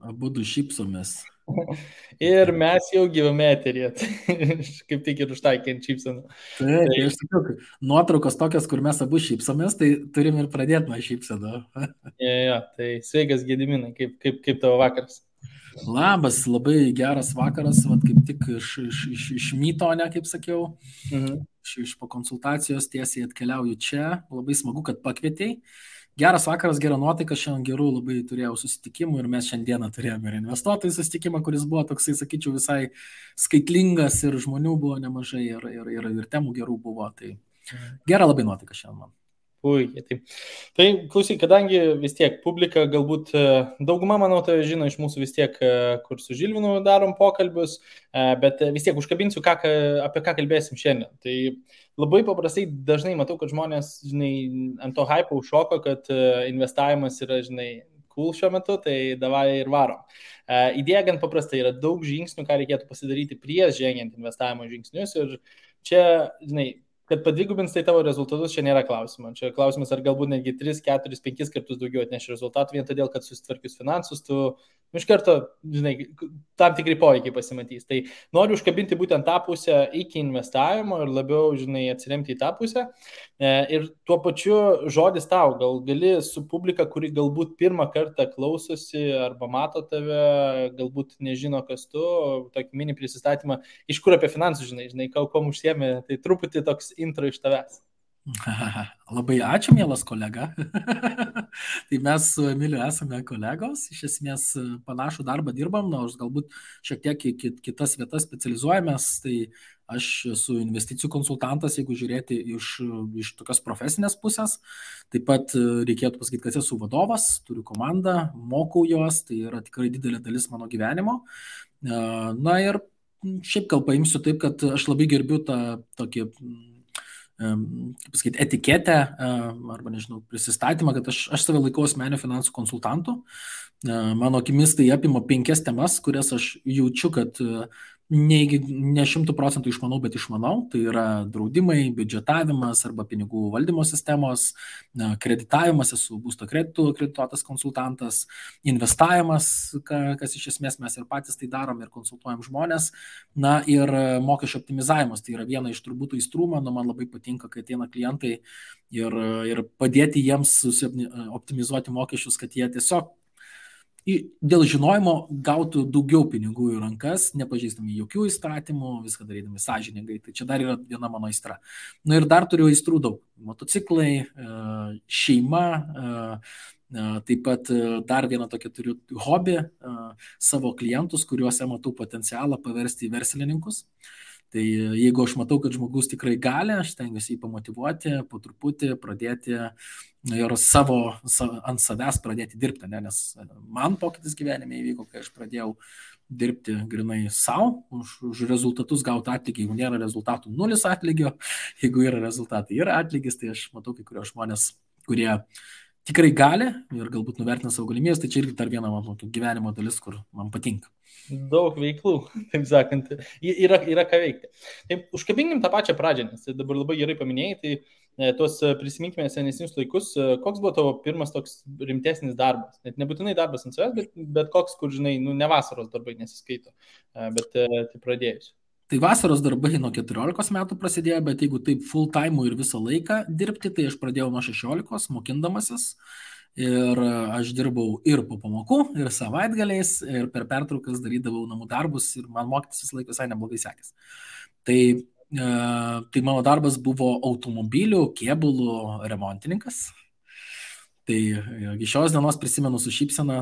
Abudu šypsomės. Ir mes jau gyvame eteryje. Kaip tik ir užtaikėm šypseną. Taip, Tai, tai aš sakiau, nuotraukos tokios, kur mes abu šypsomės, tai turim ir pradėti nuo šypsenų. tai sveikas Gediminai, kaip tavo vakaras? Labas, labai geras vakaras, vat, kaip tik iš myto, ne, kaip sakiau, Mhm. iš po konsultacijos tiesiai atkeliauju čia. Labai smagu, kad pakvietei. Geras vakaras, gera nuotaika, šiandien gerų labai turėjau susitikimų ir mes šiandieną turėjome ir investuotojų susitikimą, kuris buvo toksai, sakyčiau, visai skaitlingas ir žmonių buvo nemažai ir temų gerų buvo. Tai gera labai nuotaika šiandien man. Puikiai. Tai klausyk, kadangi vis tiek publika, galbūt dauguma, manau, tai žino iš mūsų vis tiek, kur su Žilvinu darom pokalbius, bet vis tiek užkabinsiu, apie ką kalbėsim šiandien. Tai labai paprastai dažnai matau, kad žmonės, žinai, ant to hype užšoko, kad investavimas yra, žinai, cool šiuo metu, tai davai ir varom. Idėja gan paprastai, yra daug žingsnių, ką reikėtų pasidaryti prieš žengiant investavimo žingsnius ir čia, žinai, kad padvigubins tai tavo rezultatus, čia nėra klausimo. Čia klausimas, ar galbūt netgi 3, 4, 5 kartus daugiau atneš rezultatų, vien todėl, kad susitvarkius finansus, tu iš karto, žinai, tam tikrai poveikiai pasimatys. Tai noriu užkabinti būtent tą pusę iki investavimo ir labiau, žinai, atsiremti į tą pusę. Ir tuo pačiu žodis tau, gal gali su publika, kuri galbūt pirmą kartą klausosi arba mato tave, galbūt nežino, kas tu, tokį mini prisistatymą, iš kur apie finansus, žinai, kuom užsiemi, tai truputį toks intro iš tavęs. Labai ačiū, mielas kolega. Tai mes su Emiliu esame kolegos, iš esmės panašų darbą dirbam, nors galbūt šiek tiek kitas vietas specializuojamės. Tai aš esu investicijų konsultantas, jeigu žiūrėti iš tokios profesinės pusės. Taip pat reikėtų pasakyti, kad esu vadovas, turiu komandą, mokau juos, tai yra tikrai didelė dalis mano gyvenimo. Na ir šiaip gal paimsiu taip, kad aš labai gerbiu tą tokį kaip pasakyti, etiketę arba, nežinau, prisistatymą, kad aš save laikau asmeniniu finansų konsultantu. Mano akimis tai apima 5 temas, kurias aš jaučiu, kad ne 100% išmanau, bet išmanau. Tai yra draudimai, biudžetavimas arba pinigų valdymo sistemos, kreditavimas, esu būsto kreditų kredituotas konsultantas, investavimas, kas iš esmės mes ir patys tai darom ir konsultuojam žmonės. Na ir mokesčio optimizavimas, tai yra viena iš turbūt aistrų, man labai patinka, kai ateina klientai ir padėti jiems optimizuoti mokesčius, kad jie tiesiog dėl žinojimo gautų daugiau pinigų į rankas, nepažeisdami jokių įstatymų, viską darydami sąžiningai. Tai čia dar yra viena mano aistra. Na ir dar turiu aistrų daug. Motociklai, šeima, taip pat dar vieną tokią turiu hobį, savo klientus, kuriuose matau potencialą paversti į verslininkus. Tai jeigu aš matau, kad žmogus tikrai gali, aš stengiuosi jį pamotyvuoti, po truputį pradėti ir ant savęs pradėti dirbti, nes man pokytis gyvenime įvyko, kai aš pradėjau dirbti grinai savo, už rezultatus gauti atlygį. Jeigu nėra rezultatų, 0 atlygio, jeigu yra rezultatai, yra atlygis, tai aš matau kai kurios žmonės, kurie tikrai gali ir galbūt nuvertina savo galimybės, tai čia irgi dar viena mano gyvenimo dalis, kur man patinka. Daug veiklų, taip sakant, yra ką veikti. Taip, užkabinkim tą pačią pradžią, nes dabar labai gerai paminėjai, tai tuos prisiminkime senesnius laikus, koks buvo tavo pirmas toks rimtesnis darbas? Net nebūtinai darbas ant savęs, bet koks, kur, žinai, ne vasaros darbai nesiskaito, bet tai pradėjus. Tai vasaros darbai nuo 14 metų prasidėjo, bet jeigu taip full time ir visą laiką dirbti, tai aš pradėjau nuo 16 mokindamasis. Ir aš dirbau ir po pamokų, ir savaitgaliais, ir per pertraukas darydavau namų darbus ir man mokytis visą laiką visai neblogai sekės. Tai mano darbas buvo automobilių, kėbulų remontininkas. Tai iki šios dienos prisimenu su šypsena,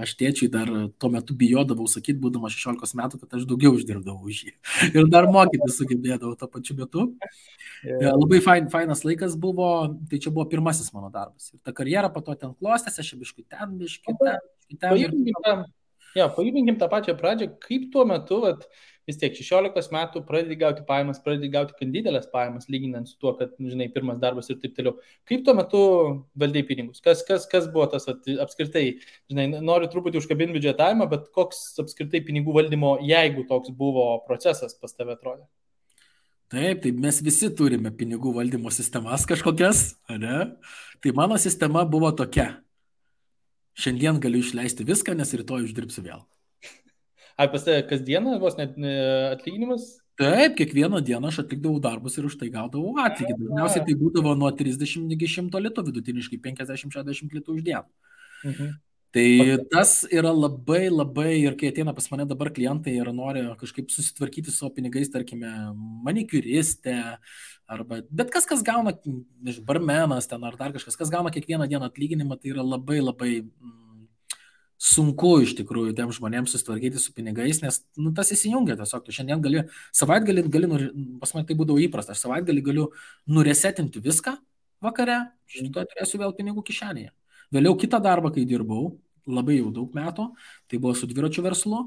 aš tėčiui dar tuo metu bijodavau sakyti, būdama 16 metų, kad aš daugiau uždirbdavau už jį. Ir dar mokytis sugebėdavau tuo pačiu metu. Labai fainas laikas buvo, tai čia buvo pirmasis mano darbas. Ir ta karjera po to ten klostėsi, aš biškai ten. Pajudinkim tą pačią pradžią, kaip tuo metu, vis tiek 16 metų pradedi gauti pajamas, pradedi gauti didelės pajamas, lyginant su tuo, kad, žinai, pirmas darbas ir taip toliau. Kaip tuo metu valdai pinigus? Kas buvo tas apskritai, žinai, noriu truputį užkabinti biudžetavimą, bet koks apskritai pinigų valdymo, jeigu toks buvo procesas pas tave atrodė? Taip, mes visi turime pinigų valdymo sistemas kažkokias, ne? Tai mano sistema buvo tokia. Šiandien galiu išleisti viską, nes rytoj uždirbsiu vėl. Ar pas tave kasdieną vos net atlyginimas? Taip, kiekvieną dieną aš atlikdavau darbus ir už tai gaudavau atlygį. Dažniausiai tai būdavo nuo 30 iki 100 litų, vidutiniškai 50-60 litų už dieną. Mhm. Tai tas yra labai, labai, ir kai ateina pas mane dabar klientai ir nori kažkaip susitvarkyti su savo pinigais, tarkime, manikiuristė, arba bet kas gauna, barmenas ten ar dar kažkas, kas gauna kiekvieną dieną atlyginimą, tai yra labai, labai sunku iš tikrųjų tiem žmonėms susitvarkyti su pinigais, nes tas įsijungia tiesiog. Tu šiandien gali, savaitgalį pas mane tai būdavo įprasta, aš savaitgalį galiu nuresetinti viską vakare, šitą turėsiu vėl pinigų kišenėje. Vėliau kitą darbą, kai dirbau, labai jau daug metų, tai buvo su dviračių verslu,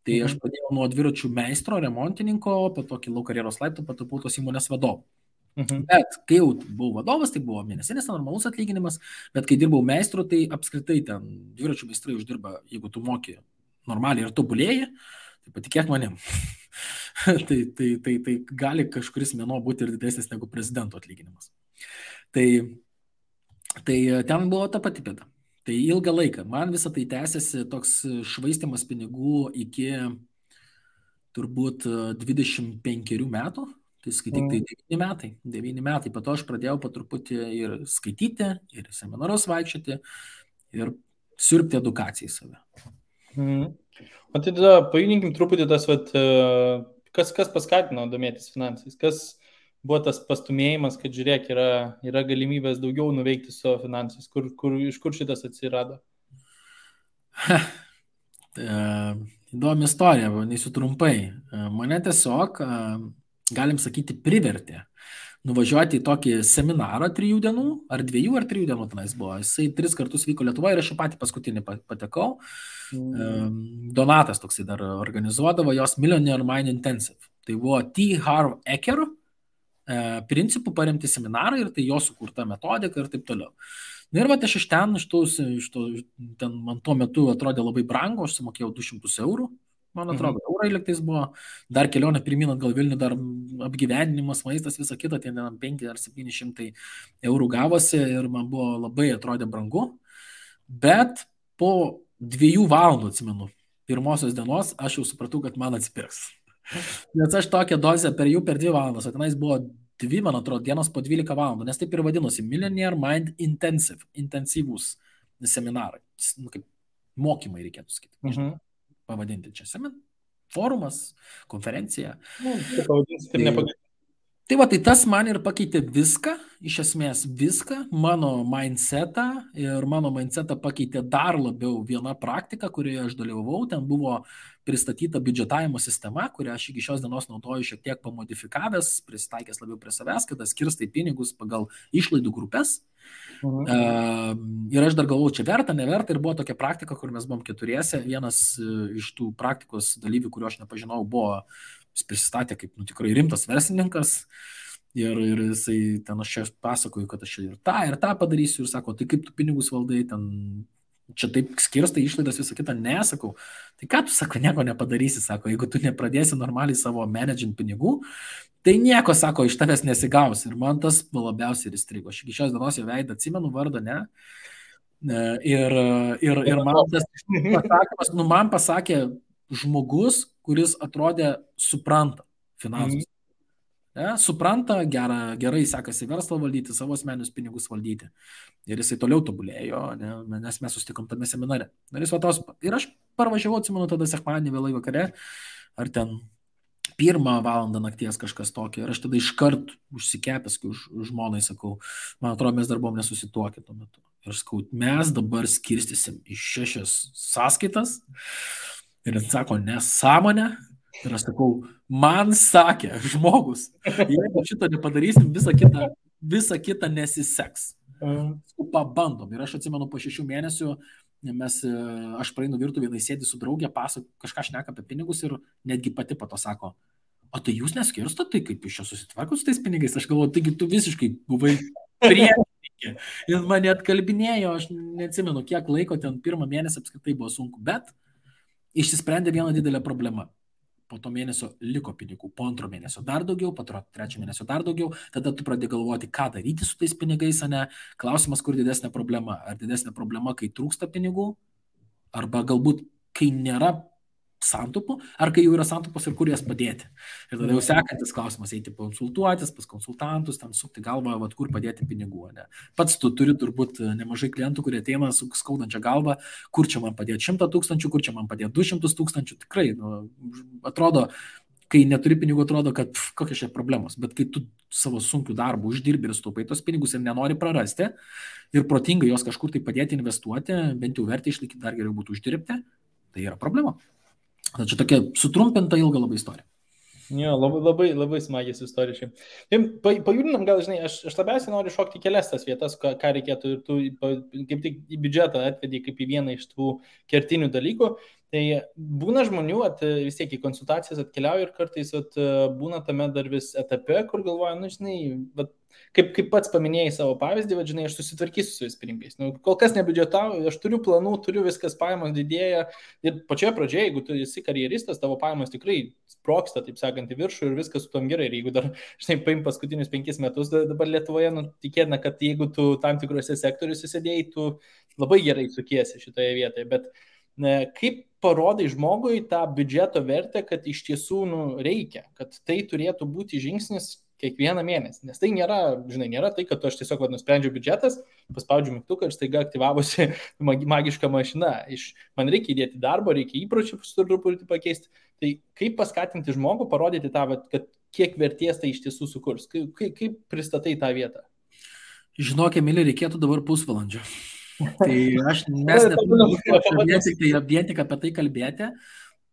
tai aš pradėjau nuo dviračių meistro, remontininko, po to kilau karjeros laiptų, patapau tos įmonės vadovu. Bet kai jau buvau vadovas, tai buvo mėnesinis normalus atlyginimas, bet kai dirbau meistru, tai apskritai ten dviračių meistrai uždirba, jeigu tu moki normaliai ir tobulėji, tai patikėk manim. tai gali kažkuris mėnuo būti ir didesnis negu prezidento atlyginimas. Tai ten buvo ta pati bėda. Tai ilgą laiką. Man visą tai tęsiasi toks švaistimas pinigų iki turbūt 25 metų. Tai skaityk, tai 9 metai. Po to aš pradėjau po truputį ir skaityti, ir seminarus vaikščioti, ir siurbti edukaciją į save. O tai tada pajudinkim truputį tas, kas paskatino domėtis finansais? Kas buvo tas pastumėjimas, kad žiūrėk, yra galimybės daugiau nuveikti su savo finansais? Iš kur šitas atsirado? Įdomi istorija, vadinasiu trumpai. Mane tiesiog, galim sakyti, privertė nuvažiuoti į tokį seminarą 3 dienų, ar 2 ar 3 dienų tenais buvo. Jisai 3 kartus vyko Lietuvoje ir aš į patį paskutinį patekau. Donatas toksai dar organizuodavo jos Millionaire Mind Intensive. Tai buvo T. Harv Eker principų paremti seminarai ir tai jo sukurta metodika ir taip toliau. Na ir aš iš ten, ten man tuo metu atrodė labai brangu, aš sumokėjau 200 eurų, man atrodo, eurai liktais buvo, dar kelionė pirmin atgal Vilnių, dar apgyvendinimas, maistas, visa kita, ten 5 ar 700 eurų gavosi ir man buvo labai atrodė brangu, bet po 2 valandų, atsimenu, pirmosios dienos aš jau supratau, kad man atsipirks. Nes aš tokią dozę per 2 valandas, o tenais buvo 2, man atrodo, dienos po 12 valandų, nes taip ir vadinosi Millionaire Mind Intensive, intensyvūs seminarai, kaip mokymai reikėtų sakyti, pavadinti čia forumas, konferencija. Tai tas man ir pakeitė viską, iš esmės viską, mano mindsetą, ir mano mindsetą pakeitė dar labiau viena praktika, kurioje aš dalyvavau. Ten buvo pristatyta biudžetavimo sistema, kurią aš iki šios dienos naudoju šiek tiek pamodifikavęs, prisitaikęs labiau prie savęs, kada skirstai pinigus pagal išlaidų grupės. Ir aš dar galvojau, čia verta, neverta, ir buvo tokia praktika, kur mes buvom 4. Vienas iš tų praktikos dalyvių, kurio aš nepažinau, buvo, jis prisistatė kaip tikrai rimtas verslininkas ir jisai ten aš čia pasakoju, kad aš ir tą padarysiu ir sako, tai kaip tu pinigus valdai, ten čia taip skirstai išlaidas visą kitą, nesakau. Tai ką tu, sako, nieko nepadarysi, sako, jeigu tu nepradėsi normaliai savo managing pinigų, tai nieko, sako, iš tavęs nesigaus. Ir man tas labiausiai ir įstrigo. Aš iki šios dienos jo veidą atsimenu, vardą, ne. Ir man tas pasakymas, man pasakė žmogus, kuris atrodė supranta finansus. Supranta, gerai sekasi verslą valdyti, savo asmeninius pinigus valdyti. Ir jisai toliau tobulėjo, nes mes susitikom tame seminare. Ir aš parvažiavau, atsimenu, tada sekmadienį vėlai vakare, ar ten 1 valandą nakties kažkas tokio. Ir aš tada iškart užsikepęs, kai žmonai sakau, man atrodo, mes dar buvom nesusituokę tuo metu. Ir sakau, mes dabar skirstysim į 6 sąskaitas. Ir jis sako, nesąmonė. Ir aš sakau, man sakė žmogus, jeigu šito nepadarysim, visa kita nesiseks. Pabandom. Ir aš atsimenu, po 6 mėnesių aš praeinu virtuvėje, sėdi su draugė, kažką šneka apie pinigus ir netgi pati po to sako, o tai jūs neskirstot, tai kaip iš čia susitvarkot su tais pinigais? Aš galvoju, taigi tu visiškai buvai priešininkė. Ir mane atkalbinėjo, aš neatsimenu, kiek laiko ten 1 mėnesį apskritai buvo sunku, bet išsisprendė viena didelė problema. Po to mėnesio liko pinigų, po 2 mėnesio dar daugiau, po 3 mėnesio dar daugiau, tada tu pradedi galvoti, ką daryti su tais pinigais, ne? Klausimas, kur didesnė problema. Ar didesnė problema, kai trūksta pinigų, arba galbūt, kai nėra santaupų, ar kai jau yra santaupos ir kur jas padėti. Ir tada jau sekantis klausimas, eiti konsultuotis pas konsultantus, ten sukti galvą, vat, kur padėti pinigų. Ne? Pats tu turi turbūt nemažai klientų, kurie ateina su skaudančia galva, kur čia man padėti 100 000, kur čia man padėti 200 000. Tikrai, atrodo, kai neturi pinigų, atrodo, kad kokios čia problemos. Bet kai tu savo sunkių darbų uždirbi ir staupai tos pinigus ir nenori prarasti ir protingai jos kažkur tai padėti investuoti, bent jau vertę išlaikyti, dar geriau būtų uždirbti, tai yra problema. Čia tokia sutrumpinta ilga labai istorija. Jo, labai smagiai istorija. Pajudinam, gal, žinai, aš labiausiai noriu šokti kelias tas vietas, ką reikėtų, ir tu kaip tik į biudžetą atvedį kaip į vieną iš tų kertinių dalykų. Tai būna žmonių, vis tiek į konsultacijas atkeliauja ir kartais būna tame dar vis etape, kur galvoja, žinai, kaip pats paminėjai savo pavyzdį, žinai, aš susitvarkysiu su vis pinigais. Kol kas nebiudžetauju, aš turiu planų, turiu viskas, pajamos didėja. Ir pačioje pradžioje, jeigu tu esi karjeristas, tavo pajamos tikrai sproksta, taip sakant, į viršų ir viskas su tom gerai. Ir jeigu dar, žinai, paim paskutinius 5 metus dabar Lietuvoje, tikėtina, kad jeigu tu tam tikrose sektoriuose sėdėjai, tu labai gerai sukiesi šitoje vietoje. Bet kaip parodai žmogui tą biudžeto vertę, kad iš tiesų reikia, kad tai turėtų būti žingsnis kiekvieną mėnesį. Nes tai nėra, žinai, nėra tai, kad aš tiesiog nusprendžiau biudžetas, paspaudžiu mygtuką ir staiga aktyvavosi magiška mašina. Man reikia įdėti darbo, reikia įpročių truputį pakeisti. Tai kaip paskatinti žmogų, parodyti tą, kad kiek vertės tai iš tiesų sukurs? Kaip pristatai tą vietą? Žinok, Emilija, reikėtų dabar pusvalandžio. Tai mes neturime vien tik apie tai kalbėti.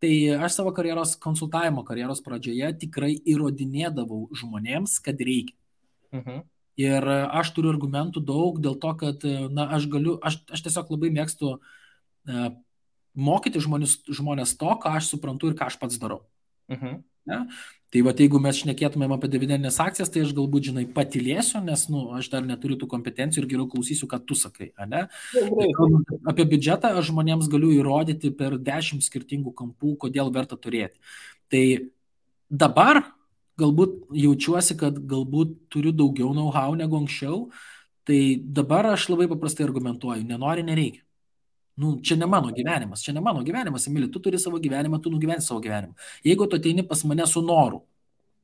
Tai aš savo konsultavimo karjeros pradžioje tikrai įrodinėdavau žmonėms, kad reikia. Ir aš turiu argumentų daug dėl to, kad aš tiesiog labai mėgstu mokyti žmonės to, ką aš suprantu ir ką aš pats darau. Ne? Tai jeigu mes šnekėtumėm apie dividendinės akcijas, tai aš galbūt, žinai, patylėsiu, nes aš dar neturiu tų kompetencijų ir geriau klausysiu, ką tu sakai. Ne? Apie biudžetą aš žmonėms galiu įrodyti per 10 skirtingų kampų, kodėl verta turėti. Tai dabar galbūt jaučiuosi, kad galbūt turiu daugiau know-how negu anksčiau, tai dabar aš labai paprastai argumentuoju, nenori, nereikia. Čia ne mano gyvenimas, Emilija, tu turi savo gyvenimą, tu nugyveni savo gyvenimą. Jeigu tu ateini pas mane su noru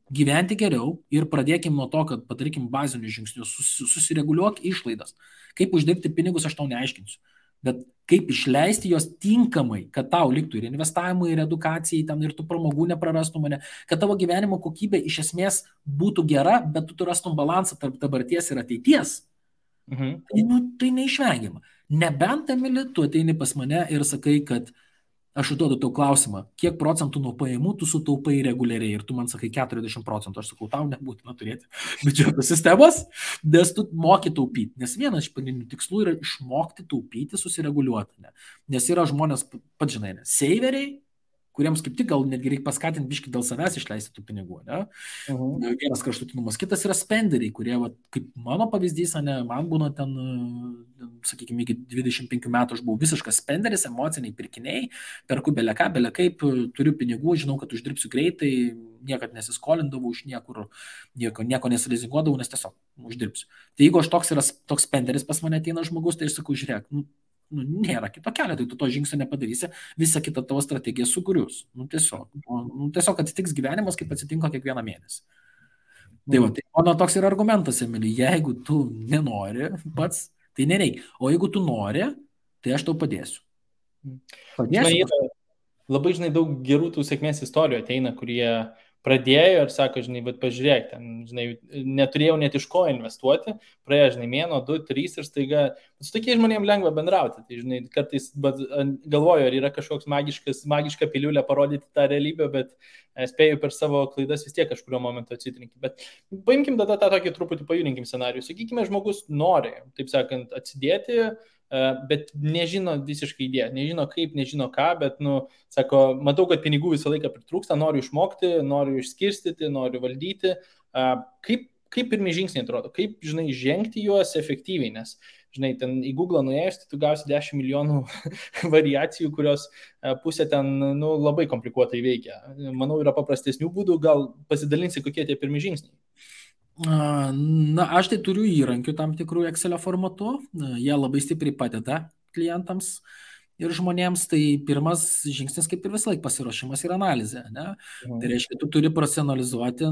gyventi geriau ir pradėkim nuo to, kad padarykim bazinius žingsnius, susireguliuok išlaidas. Kaip uždirbti pinigus, aš tau neaiškinsiu. Bet kaip išleisti jos tinkamai, kad tau liktų ir investavimui, ir edukacijai, ten ir tu pramogų neprarastum mane, kad tavo gyvenimo kokybė iš esmės būtų gera, bet tu rastum balansą tarp dabarties ir ateities. Tai neišvengiama. Nebent, Emili, tu ateini pas mane ir sakai, kad aš užduodu tau klausimą, kiek procentų nuo pajamų tu sutaupai reguliariai ir tu man sakai 40%, aš sakau, tau nebūtina turėti biudžeto sistemos, nes tu moki taupyti. Nes vienas iš pagrindinių tikslų yra išmokti taupyti, susireguliuoti. Nes yra žmonės, pats žinai, seiveriai, kuriems kaip tik gal netgi reikia paskatinti biškį dėl savęs išleisti tų pinigų. Vienas kraštutinumas. Kitas yra spenderiai, kurie, kaip mano pavyzdys, man būna ten, sakykime, iki 25 metų aš buvau visiškas spenderis, emociniai pirkiniai, perku beleką, belekaip, turiu pinigų, žinau, kad uždirbsiu greitai, niekad nesiskolindavau iš nieko nesilizinguodavau, nes tiesiog uždirbsiu. Tai jeigu aš toks spenderis pas mane ateina žmogus, tai aš sakau, žiūrėk, nėra kito kelio, tai tu to žingsnio nepadarysi, visą kitą tavo strategiją sugrius. Tiesiog atsitiks gyvenimas, kaip atsitinka kiekvieną mėnesį. Tai mano toks yra argumentas, Emilija, jeigu tu nenori pats, tai nereikia. O jeigu tu nori, tai aš tau padėsiu. Labai, žinai, daug gerų tų sėkmės istorijų ateina, kurie pradėjo ir sako, žinai, bet pažiūrėk, ten, žinai, neturėjau net iš ko investuoti, praėjo, žinai, mėnuo, 2, 3 ir staiga, su tokiais žmonėms lengva bendrauti, tai, žinai, kartais galvoju, ar yra kažkoks magiška piliulė parodyti tą realybę, bet spėju per savo klaidas vis tiek kažkurio momentu atsitrinti. Bet paimkim tada tą tokį truputį pajudinkim scenarijų, sakykime, žmogus nori, taip sakant, atsidėti, bet nežino visiškai idėją, nežino kaip, nežino ką, bet, sako, matau, kad pinigų visą laiką pritrūksta, noriu išmokti, noriu išskirstyti, noriu valdyti. Kaip pirmi žingsniai atrodo, kaip, žinai, žengti juos efektyviai, nes, žinai, ten į Google nuėjus, tai tu gausi 10 milijonų variacijų, kurios pusė ten, labai komplikuotai veikia. Manau, yra paprastesnių būdų, gal pasidalinsi, kokie tie pirmi žingsniai. Aš tai turiu įrankių tam tikrų Excelio formatu, jie labai stipriai padeda klientams ir žmonėms tai pirmas žingsnis kaip ir visą laiką pasiruošimas ir analizė. Ne? Tai reiškia, tu turi profesionalizuoti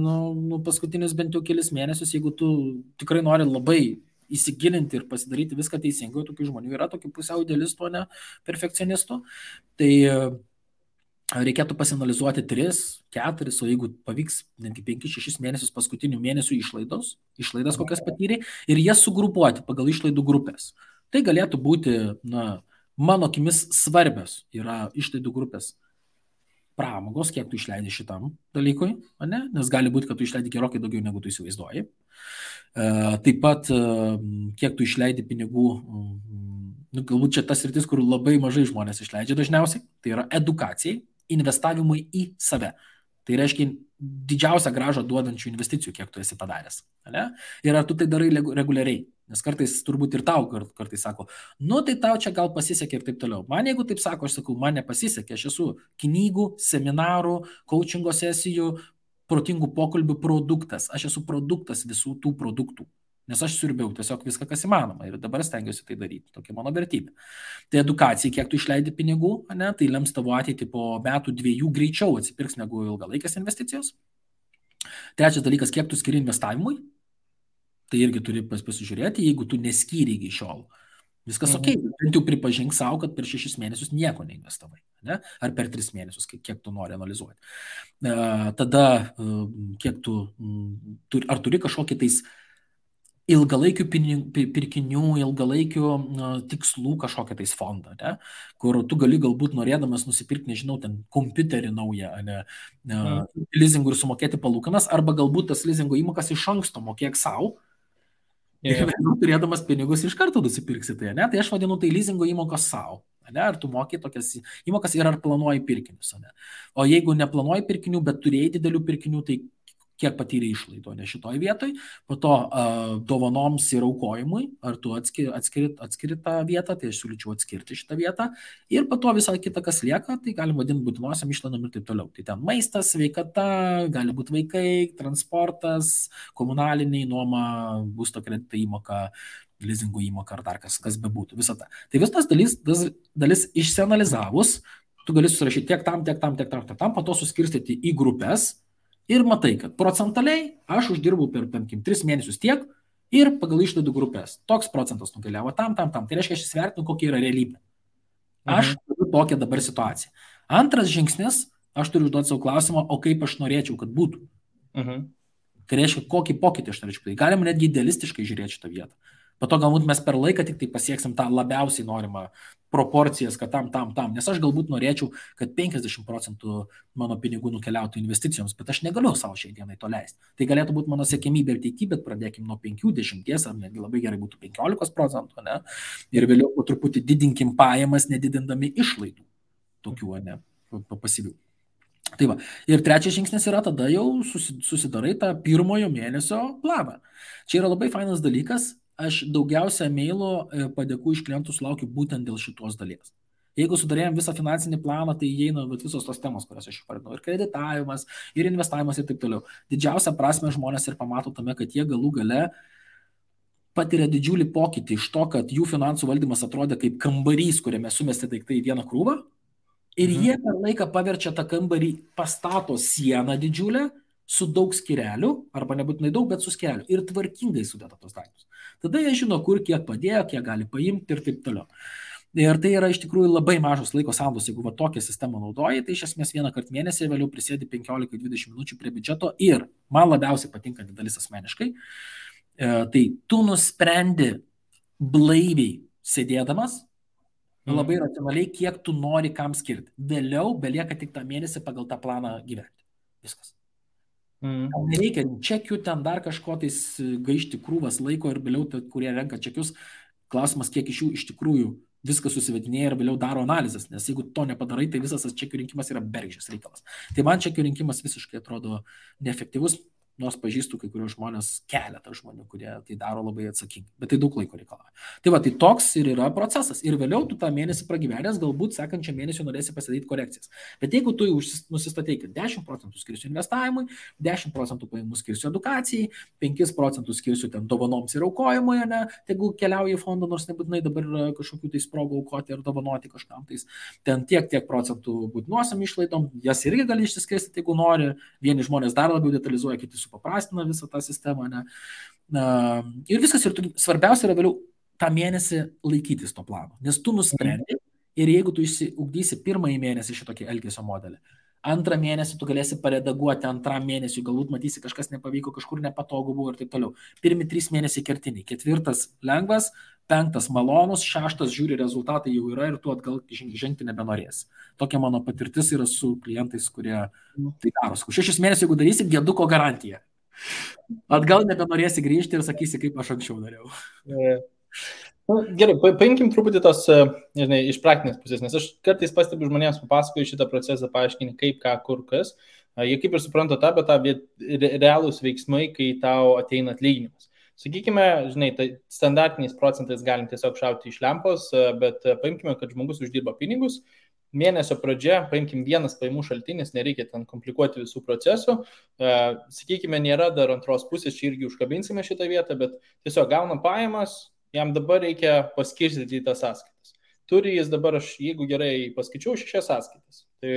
paskutinius bent jau kelis mėnesius, jeigu tu tikrai nori labai įsigilinti ir pasidaryti viską teisingai, tokių žmonių yra, tokių pusiau idealistų, ne perfekcionistų, tai reikėtų pasinalizuoti 3, 4, o jeigu pavyks netgi 5-6 mėnesius paskutinių mėnesių išlaidas kokias patyrė, ir jas sugrupuoti pagal išlaidų grupės. Tai galėtų būti, mano akimis svarbios yra išlaidų grupės pramogos, kiek tu išleidai šitam dalykui, ne? Nes gali būti, kad tu išleidai gerokai daugiau, negu tu įsivaizduoji. Taip pat, kiek tu išleidai pinigų, galbūt čia tas sritis, kur labai mažai žmonės išleidžia dažniausiai, tai yra edukacijai, investavimui į save. Tai reiškia didžiausią grąžą duodančių investicijų, kiek tu esi padaręs. Ne? Ir ar tu tai darai reguliariai? Nes kartais turbūt ir tau kartais sako, tai tau čia gal pasisekė ir taip toliau. Man jeigu taip sako, aš sakau, man nepasisekė, aš esu knygų, seminarų, coachingo sesijų, protingų pokalbių produktas. Aš esu produktas visų tų produktų. Nes aš siurbiau tiesiog viską, kas įmanoma. Ir dabar stengiuosi tai daryti. Tokia mano vertybė. Tai edukacija, kiek tu išleidi pinigų, ne, tai lems tavo ateitį po metų 2 greičiau atsipirks negu ilgalaikės investicijos. Trečias dalykas, kiek tu skiri investavimui. Tai irgi turi pasižiūrėti, jeigu tu neskyri iki šiol. Viskas ok, bent jau pripažink savo, kad per 6 mėnesius nieko neinvestavai. Ne? Ar per 3 mėnesius, kiek tu nori analizuoti. Tada, kiek ar turi kažkokį tais ilgalaikių pirkinių, ilgalaikių tikslų kažkokią tais fondą, ne? Kur tu gali galbūt norėdamas nusipirkti, nežinau, ten kompiuterį naują, leasingų ir sumokėti palūkanas, arba galbūt tas leasingo įmokas iš anksto mokėk savo, ir turėdamas pinigus iš karto nusipirksi tai, ne? Tai aš vadinu tai leasingo įmokos savo. Ne? Ar tu moki tokias įmokas ir ar planuoji pirkinius. Ne? O jeigu neplanuoji pirkinių, bet turėjai didelių pirkinių, tai kiek patyrė išlaidų, ne šitoj vietoj, po to dovanoms ir aukojimui, ar tu atskiri tą vietą, tai aš siūlyčiau atskirti šitą vietą, ir po to visą kitą, kas lieka, tai galim vadinti būtinosiam išlaidom ir taip toliau. Tai ten maistas, sveikata, gali būti vaikai, transportas, komunaliniai, nuoma, būsto kredito įmoka, leasingo įmoka ar dar kas bebūtų, visą tą. Tai visas dalis išsianalizavus, tu gali susirašyti tiek tam, po to suskirstyti į grupės. Ir matai, kad procentaliai aš uždirbau per 3 mėnesius tiek ir pagal išlaidų grupės. Toks procentas nukeliavo tam. Tai reiškia, aš įsivertinu, kokia yra realybė. Aš turiu tokią dabar situaciją. Antras žingsnis, aš turiu užduoti savo klausimą, o kaip aš norėčiau, kad būtų. Tai reiškia, kokį pokytį aš norėčiau. Tai galima netgi idealistiškai žiūrėti šitą vietą. Po to galbūt mes per laiką tik tai pasieksim tą labiausiai norimą proporcijas, kad tam. Nes aš galbūt norėčiau, kad 50% mano pinigų nukeliautų investicijoms, bet aš negaliu savo šiai dienai to leisti. Tai galėtų būti mano siekimybė ir ateityje, bet pradėkim nuo 5-10, ar netgi labai gerai būtų 15%, ne? Ir vėliau po truputį didinkim pajamas, nedidindami išlaidų tokių, ne, pasyvių. Tai va. Ir trečias žingsnis yra tada jau susidarai tą pirmojo mėnesio planą. Čia yra labai fainas dalykas. Aš daugiausia mailų padėkų iš klientų sulaukiu būtent dėl šitos dalies. Jeigu sudarėjom visą finansinį planą, tai įeina visos tos temos, kurias aš išvardinau. Ir kreditavimas, ir investavimas ir taip toliau. Didžiausia prasme žmonės ir pamato tame, kad jie galų gale patiria didžiulį pokytį iš to, kad jų finansų valdymas atrodė kaip kambarys, kuriame sumesti daiktai į vieną krūvą. Ir jie per laiką paverčia tą kambarį, pastato sieną didžiulę, su daug skyrelių, arba nebūtinai daug, bet su skyrelių. Ir tvarkingai sudėta tos daiktus. Tada jie žino, kur kiek padėjo, kiek gali paimti ir taip toliau. Ir tai yra iš tikrųjų labai mažos laiko sąnaudos. Jeigu tokią sistemą naudoji, tai iš esmės vieną kartą mėnesį, vėliau prisėdi 15-20 minučių prie biudžeto. Ir man labiausiai patinkanti dalis asmeniškai, tai tu nusprendi blaiviai sėdėdamas, labai racionaliai, kiek tu nori kam skirti. Vėliau belieka tik tą mėnesį pagal tą planą gyventi. Viskas. Nereikia čekių, ten dar kažko tais gaišti krūvas laiko ir vėliau, kurie renka čekius, klausimas, kiek iš jų iš tikrųjų viskas susivedinėja ir vėliau daro analizės, nes jeigu to nepadarai, tai visas tas čekių rinkimas yra bergždžias reikalas. Tai man čekių rinkimas visiškai atrodo neefektyvus. nors pažįstu kai kurios žmonės, keletą žmonių, kurie tai daro labai atsakingai, bet tai daug laiko reikalauja. Tai va, tai toks ir yra procesas. Ir vėliau tu tą mėnesį pragyvenęs, galbūt sekančią mėnesį norėsi pasidaryti korekcijas. Bet jeigu tu nusistatai, kad 10% skirsiu investavimui, 10% pajamų skirsiu edukacijai, 5% skirsiu ten dovanoms ir aukojimui, ne, jeigu keliauji į fondą, nors nebūtinai dabar yra kažkokių tai sprogų aukoti ar dovanoti kažkam, tai ten tiek procentų būtinuosiam išlaidom, jas irgi gali išsiskirstyti, jeigu nori. Vieni žmonės dar labiau detalizuoja, kiti supaprastina visą tą sistemą. Ne? Ir viskas, ir svarbiausia yra vėliau tą mėnesį laikytis to plano, nes tu nusprendi ir jeigu tu išsiugdysi pirmąjį mėnesį šitokį elgesio modelį, antrą mėnesį tu galėsi paredaguoti, antram mėnesiui galbūt matysi kažkas nepavyko, kažkur nepatogu buvo ir taip toliau. Pirmi 3 mėnesiai kertiniai, 4 lengvas, 5 malonus, 6 žiūri rezultatai jau yra ir tu atgal žengti nebenorėsi. Tokia mano patirtis yra su klientais, kurie tai daro. 6 mėnesių, jeigu darysi, dieduko garantija. Atgal nebenorėsi grįžti ir sakysi, kaip aš anksčiau dariau. Gerai, paimkim truputį tos, nežinai, iš praktinės pusės, nes aš kartais pastebiu žmonėms, papasakoju šitą procesą, paaiškini kaip, ką, kur, kas. Jie kaip ir supranta tą, bet realūs veiksmai, kai tau ateina atlyginimas. Sakykime, žinai, tai standartiniais procentais galim tiesiog šauti iš lempos, bet paimkime, kad žmogus uždirba pinigus, mėnesio pradžia, paimkim vienas pajamų šaltinis, nereikia ten komplikuoti visų procesų, sakykime, nėra dar antros pusės, čia irgi užkabinsime šitą vietą, bet tiesiog gauna pajamas, jam dabar reikia paskirstyti į tas sąskaitas. Turi jis dabar, aš jeigu gerai paskaičiau, 6 sąskaitas. Tai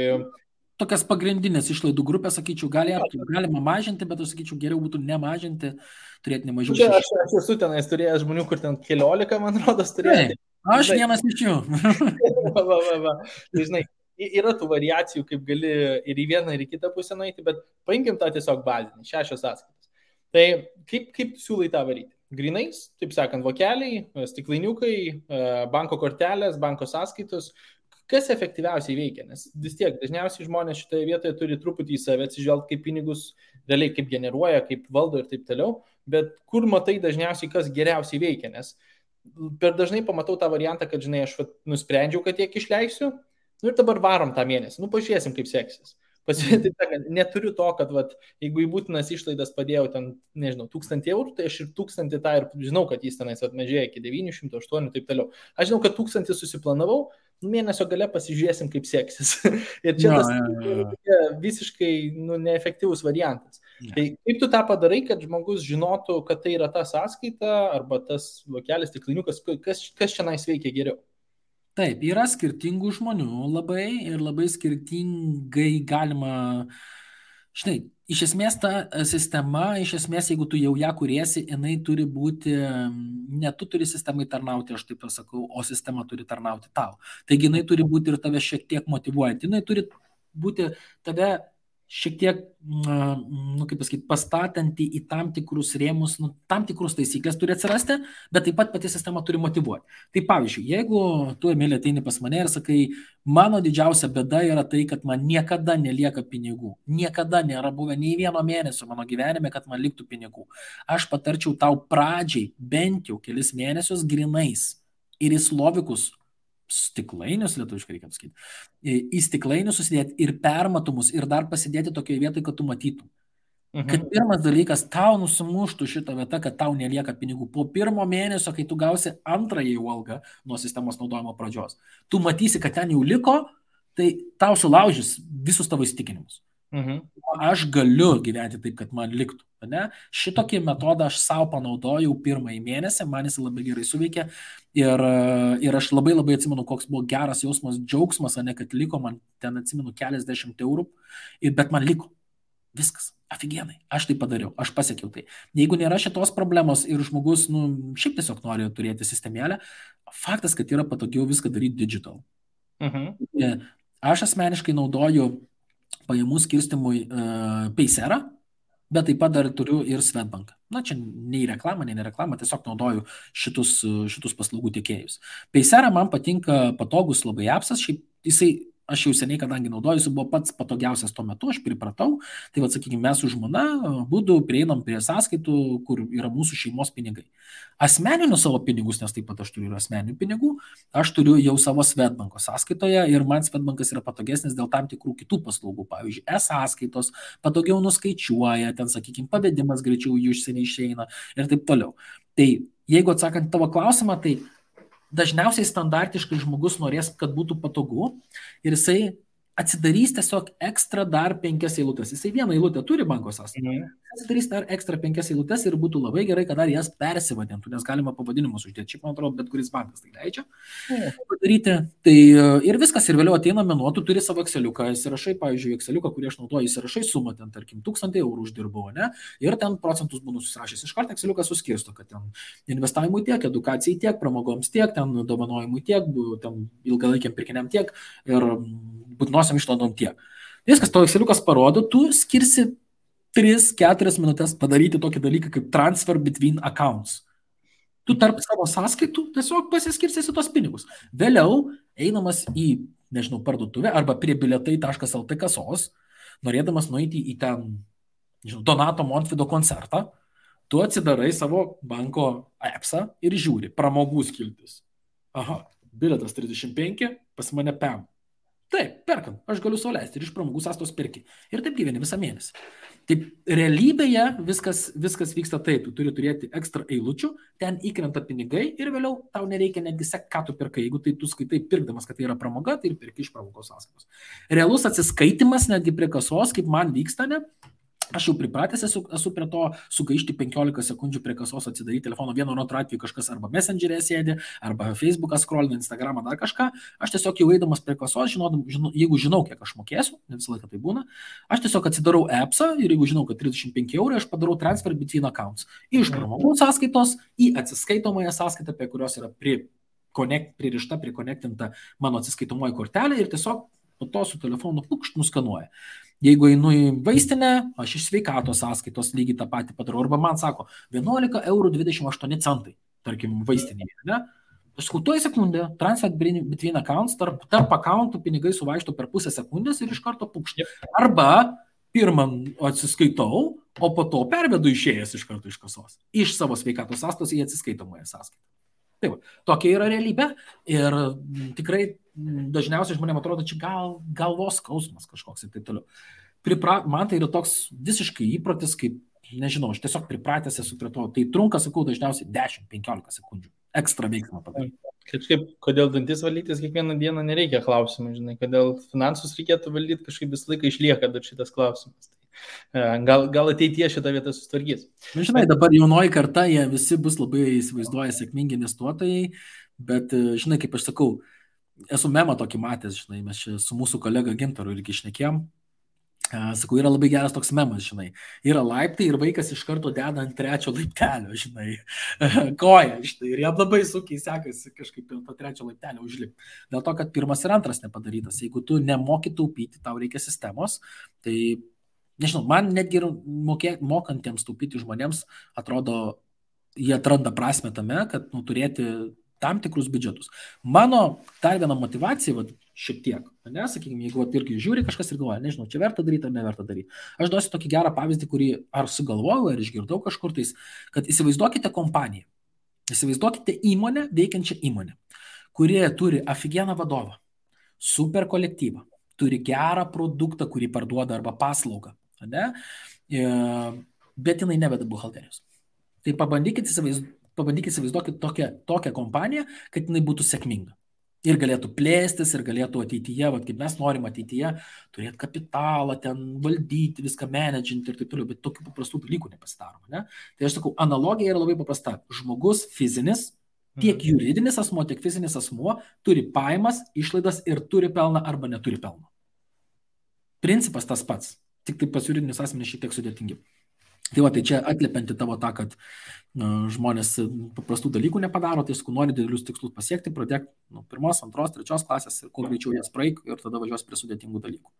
tokias pagrindinės išlaidų grupės, sakyčiau, galima mažinti, bet aš sakyčiau, geriau būtų nemažinti, turėti nemažiau 6. Aš esu tenais turėjęs žmonių, kur ten 15, man rodos, turėjo. Aš vienas iš jų. Tai, žinai, yra tų variacijų, kaip gali ir į vieną, ir į kitą pusę nueiti, bet paimkim tą tiesiog bazinį, 6 sąskaitas. Tai kaip siūlai tą varyti? Grinais, taip sakant, vokeliai, stiklainiukai, banko kortelės, banko sąskaitos. Kas efektyviausiai veikia, nes vis tiek dažniausiai žmonės šitoje vietoje turi truputį į save atsižvelgti, kaip pinigus realiai kaip generuoja, kaip valdo ir taip toliau, bet kur matai dažniausiai, kas geriausiai veikia, nes per dažnai pamatau tą variantą, kad, žinai, aš nusprendžiau, kad tiek išleisiu, ir dabar varom tą mėnesį, pažiūrėsim, kaip seksis. Neturiu to, kad jeigu į būtinas išlaidas padėjau ten, nežinau, 1000 eurų, tai aš ir 1000 tą ir žinau, kad jis tenais mažėja iki 900, 800 ir taip toliau. Aš žinau, kad 1000 susiplanavau, mėnesio gale pasižiūrėsim, kaip seksis. Ir čia visiškai neefektyvus variantas. Tai kaip tu tą padarai, kad žmogus žinotų, kad tai yra ta sąskaita arba tas vokelis, stiklainiukas, kas čia nais veikia geriau? Taip, yra skirtingų žmonių labai ir labai skirtingai galima, žinai, iš esmės ta sistema, iš esmės, jeigu tu jau ją kuriesi, jinai turi būti, ne tu turi sistemai tarnauti, aš taip pasakau, o sistema turi tarnauti tau. Taigi jinai turi būti ir tave šiek tiek motyvuojant, jinai turi būti tave šiek tiek, kaip pasakyti, pastatanti į tam tikrus rėmus, tam tikrus taisyklės turi atsirasti, bet taip pat pati sistema turi motyvuoti. Tai pavyzdžiui, jeigu tu, Emilija, ateini pas mane ir sakai, mano didžiausia bėda yra tai, kad man niekada nelieka pinigų. Niekada nėra buvę nei vieno mėnesio mano gyvenime, kad man liktų pinigų. Aš patarčiau tau pradžiai bent jau kelis mėnesius grinais ir į slovikus, stiklainius, lietuviškai reikia pasakyti, į stiklainius susidėti ir permatomus ir dar pasidėti tokioje vietoje, kad tu matytum. Kad pirmas dalykas, tau nusimuštų šitą vietą, kad tau nelieka pinigų. Po pirmo mėnesio, kai tu gausi antrąjį algą nuo sistemos naudojimo pradžios, tu matysi, kad ten jau liko, tai tau sulaužys visus tavo įsitikinimus. Aš galiu gyventi taip, kad man liktų. Ne? Šitokį metodą aš savo panaudojau pirmąjį mėnesį, man jis labai gerai suveikė ir aš labai atsimenu, koks buvo geras jausmas, džiaugsmas, ne, kad liko man ten, atsimenu, keliasdešimt eurų, bet man liko. Viskas, afigienai, aš tai padariau, aš pasiekiau tai. Jeigu nėra šitos problemos ir žmogus, šiaip tiesiog nori turėti sistemėlę, faktas, kad yra patogiau viską daryti digital. Aš asmeniškai naudoju pajamų skirstimui Paysera, bet taip pat dar turiu ir Swedbank. Na, čia nei reklama, tiesiog naudoju šitus paslaugų tiekėjus. Paysera man patinka patogus labai appsas, šiaip jisai aš jau seniai, kadangi naudojusi, buvo pats patogiausias tuo metu, aš pripratau, tai sakykime, mes su žmona būdų prieinam prie sąskaitų, kur yra mūsų šeimos pinigai. Asmeninius savo pinigus, nes taip pat aš turiu ir asmeninių pinigų, aš turiu jau savo Swedbanko sąskaitoje ir man Swedbankas yra patogesnis dėl tam tikrų kitų paslaugų, pavyzdžiui, e-sąskaitos, patogiau nuskaičiuoja, ten, sakykime, pavedimas greičiau jų išsieniai išeina ir taip toliau. Tai jeigu atsakant tavo klausimą, tai dažniausiai standartiškai žmogus norės, kad būtų patogu ir jisai atsidarys tiesiog ekstra dar 5 eilutes. Jisai vieną eilutę turi banko sąskaitoje. Atsidarys dar ekstra 5 eilutes ir būtų labai gerai, kad dar jas persivadintų, nes galima pavadinimus uždėti. Šiaip, man atrodo, bet kuris bankas tai leidžia padaryti. Tai ir viskas, ir vėliau ateina mėnuo, tu turi savo Exceliuką, įsirašai, pavyzdžiui, Exceliuką, kurį aš naudoju, įsirašai sumą, ten, tarkim, 1000 eurų uždirbau, ne? Ir ten procentus būnu susirašęs. Iš karto Exceliukas suskirsto, kad ten investavimui tiek, edukacijai tiek, pramogoms tiek, ten dovanojimui tiek, ten ilgalaikiam pirkiniam tiek ir būtinosiam išlaidom tiek. Viskas, tavo Exceliukas parodo, tu skirsi 3-4 minutės padaryti tokį dalyką kaip transfer between accounts. Tu tarp savo sąskaitų tiesiog pasiskirstysi tos pinigus. Vėliau, einamas į, nežinau, parduotuvę arba prie biletai.lt kasos, norėdamas nueiti į ten, nežinau, Donato Montvydo koncertą, tu atsidarai savo banko appsą ir žiūri, pramogų skiltis. Aha, biletas 35, pas mane PEM. Taip, perkam, aš galiu sau leisti ir iš pramogų sąskaitos pirki. Ir taip gyveni visą mėnesį. Taip, realybėje viskas vyksta taip, tu turi turėti ekstra eilučių, ten įkrenta pinigai ir vėliau tau nereikia netgi sekti, ką tu pirkai. Jeigu tai tu skaitai pirkdamas, kad tai yra pramoga, tai ir pirki iš pramogos sąskaitos. Realus atsiskaitimas netgi prie kasos, kaip man vyksta, ne? Aš jau pripratęs esu prie to sugaišti 15 sekundžių prie kasos, atsidaryti telefono, vienu ar antru atveju kažkas arba Messenger'e sėdi, arba Facebook'ą scrollina, Instagram'ą, dar kažką. Aš tiesiog jau eidamas prie kasos, jeigu žinau, kiek aš mokėsiu, ne visą laiką tai būna, aš tiesiog atsidarau appsą ir jeigu žinau, kad 35 eurų, aš padarau transfer between accounts. Iš pramogų sąskaitos į atsiskaitomąją sąskaitą, prie kurios yra pririšta, prikonektinta mano atsiskaitomoji kortelė ir tiesiog po to su telefonu nuskanuoja. Jeigu einu į vaistinę, aš iš sveikatos sąskaitos lygiai tą patį padarau. Arba man sako 11 eurų 28 centai, tarkim, vaistinėje. Ne? Aš skutuoju sekundę, transfer between accounts, tarp accountų pinigai suvaišto per pusę sekundės ir iš karto pukšti. Arba pirmą atsiskaitau, o po to pervedu išėjęs iš karto iš kasos. Iš savo sveikatos sąskaitos į atsiskaitomąją sąskaitą. Taip, tokia yra realybė ir tikrai dažniausiai žmonėms atrodo, čia galvos skausmas kažkoks ir taip toliau. Man tai yra toks visiškai įprotis, kaip, nežinau, aš tiesiog pripratęs esu prie to. Tai trunka, sakau, dažniausiai 10-15 sekundžių. Ekstra veiksmą padaryti. Kažkaip, kodėl dantis valytis kiekvieną dieną nereikia klausimų, žinai, kodėl finansus reikėtų valdyti, kažkaip visą laiką išlieka dar šitas klausimas. Gal ateityje šitą vietą sustvarkys. Žinai, dabar jaunoji karta, jie visi bus labai įsivaizduoja sėkmingi investuotojai, bet, žinai, kaip aš sakau, esu memą tokį matęs, žinai, mes čia su mūsų kolega Gintaru irgi šnekėjom. Sakau, yra labai geras toks memas, žinai. Yra laiptai ir vaikas iš karto deda ant 3 laiptelio, žinai, koją, žinai, ir jam labai sunkiai sekasi kažkaip ant to 3 laiptelio užlipti. Dėl to, kad 1 ir 2 nepadarytas. Jeigu tu nemoki taupyti, tau reikia sistemos, tai, nežinau, man netgi mokantiems taupyti žmonėms atrodo, jie atranda prasmę tame, kad turėti tam tikrus biudžetus. Mano dar viena motivacija, šiek tiek, ne, sakykime, jeigu irgi žiūri kažkas ir galvoja, nežinau, čia verta daryti ar neverta daryti. Aš duosiu tokį gerą pavyzdį, kurį ar sugalvojau, ar išgirdau kažkur tais, kad įsivaizduokite kompaniją, įsivaizduokite įmonę, veikiančią įmonę, kurie turi aфиgeną vadovą, super kolektyvą, turi gerą produktą, kurį parduoda arba paslaugą, ne, bet jinai neveda buhalterijos. Tai pabandykite įsivaizduoti tokią kompaniją, kad jinai būtų sėkminga. Ir galėtų plėstis, ir galėtų ateityje, kaip mes norim ateityje, turėti kapitalą, ten valdyti, viską menedžinti ir taip toliau, bet tokių paprastų dalykų nepasidaroma. Ne? Tai aš sakau, analogija yra labai paprasta. Žmogus fizinis, tiek juridinis asmuo, tiek fizinis asmuo turi pajamas, išlaidas ir turi pelną arba neturi pelno. Principas tas pats, tik tai pas juridinius asmenys šiek tiek sudėtingiau. Tai va, tai čia atliepianti tavo tą, kad žmonės paprastų dalykų nepadaro, tai sakau, nori didelius tikslus pasiekti, pradėk nuo 1, 2, 3 klasės ir kuo greičiau jas praeik ir tada važiuos prie sudėtingų dalykų.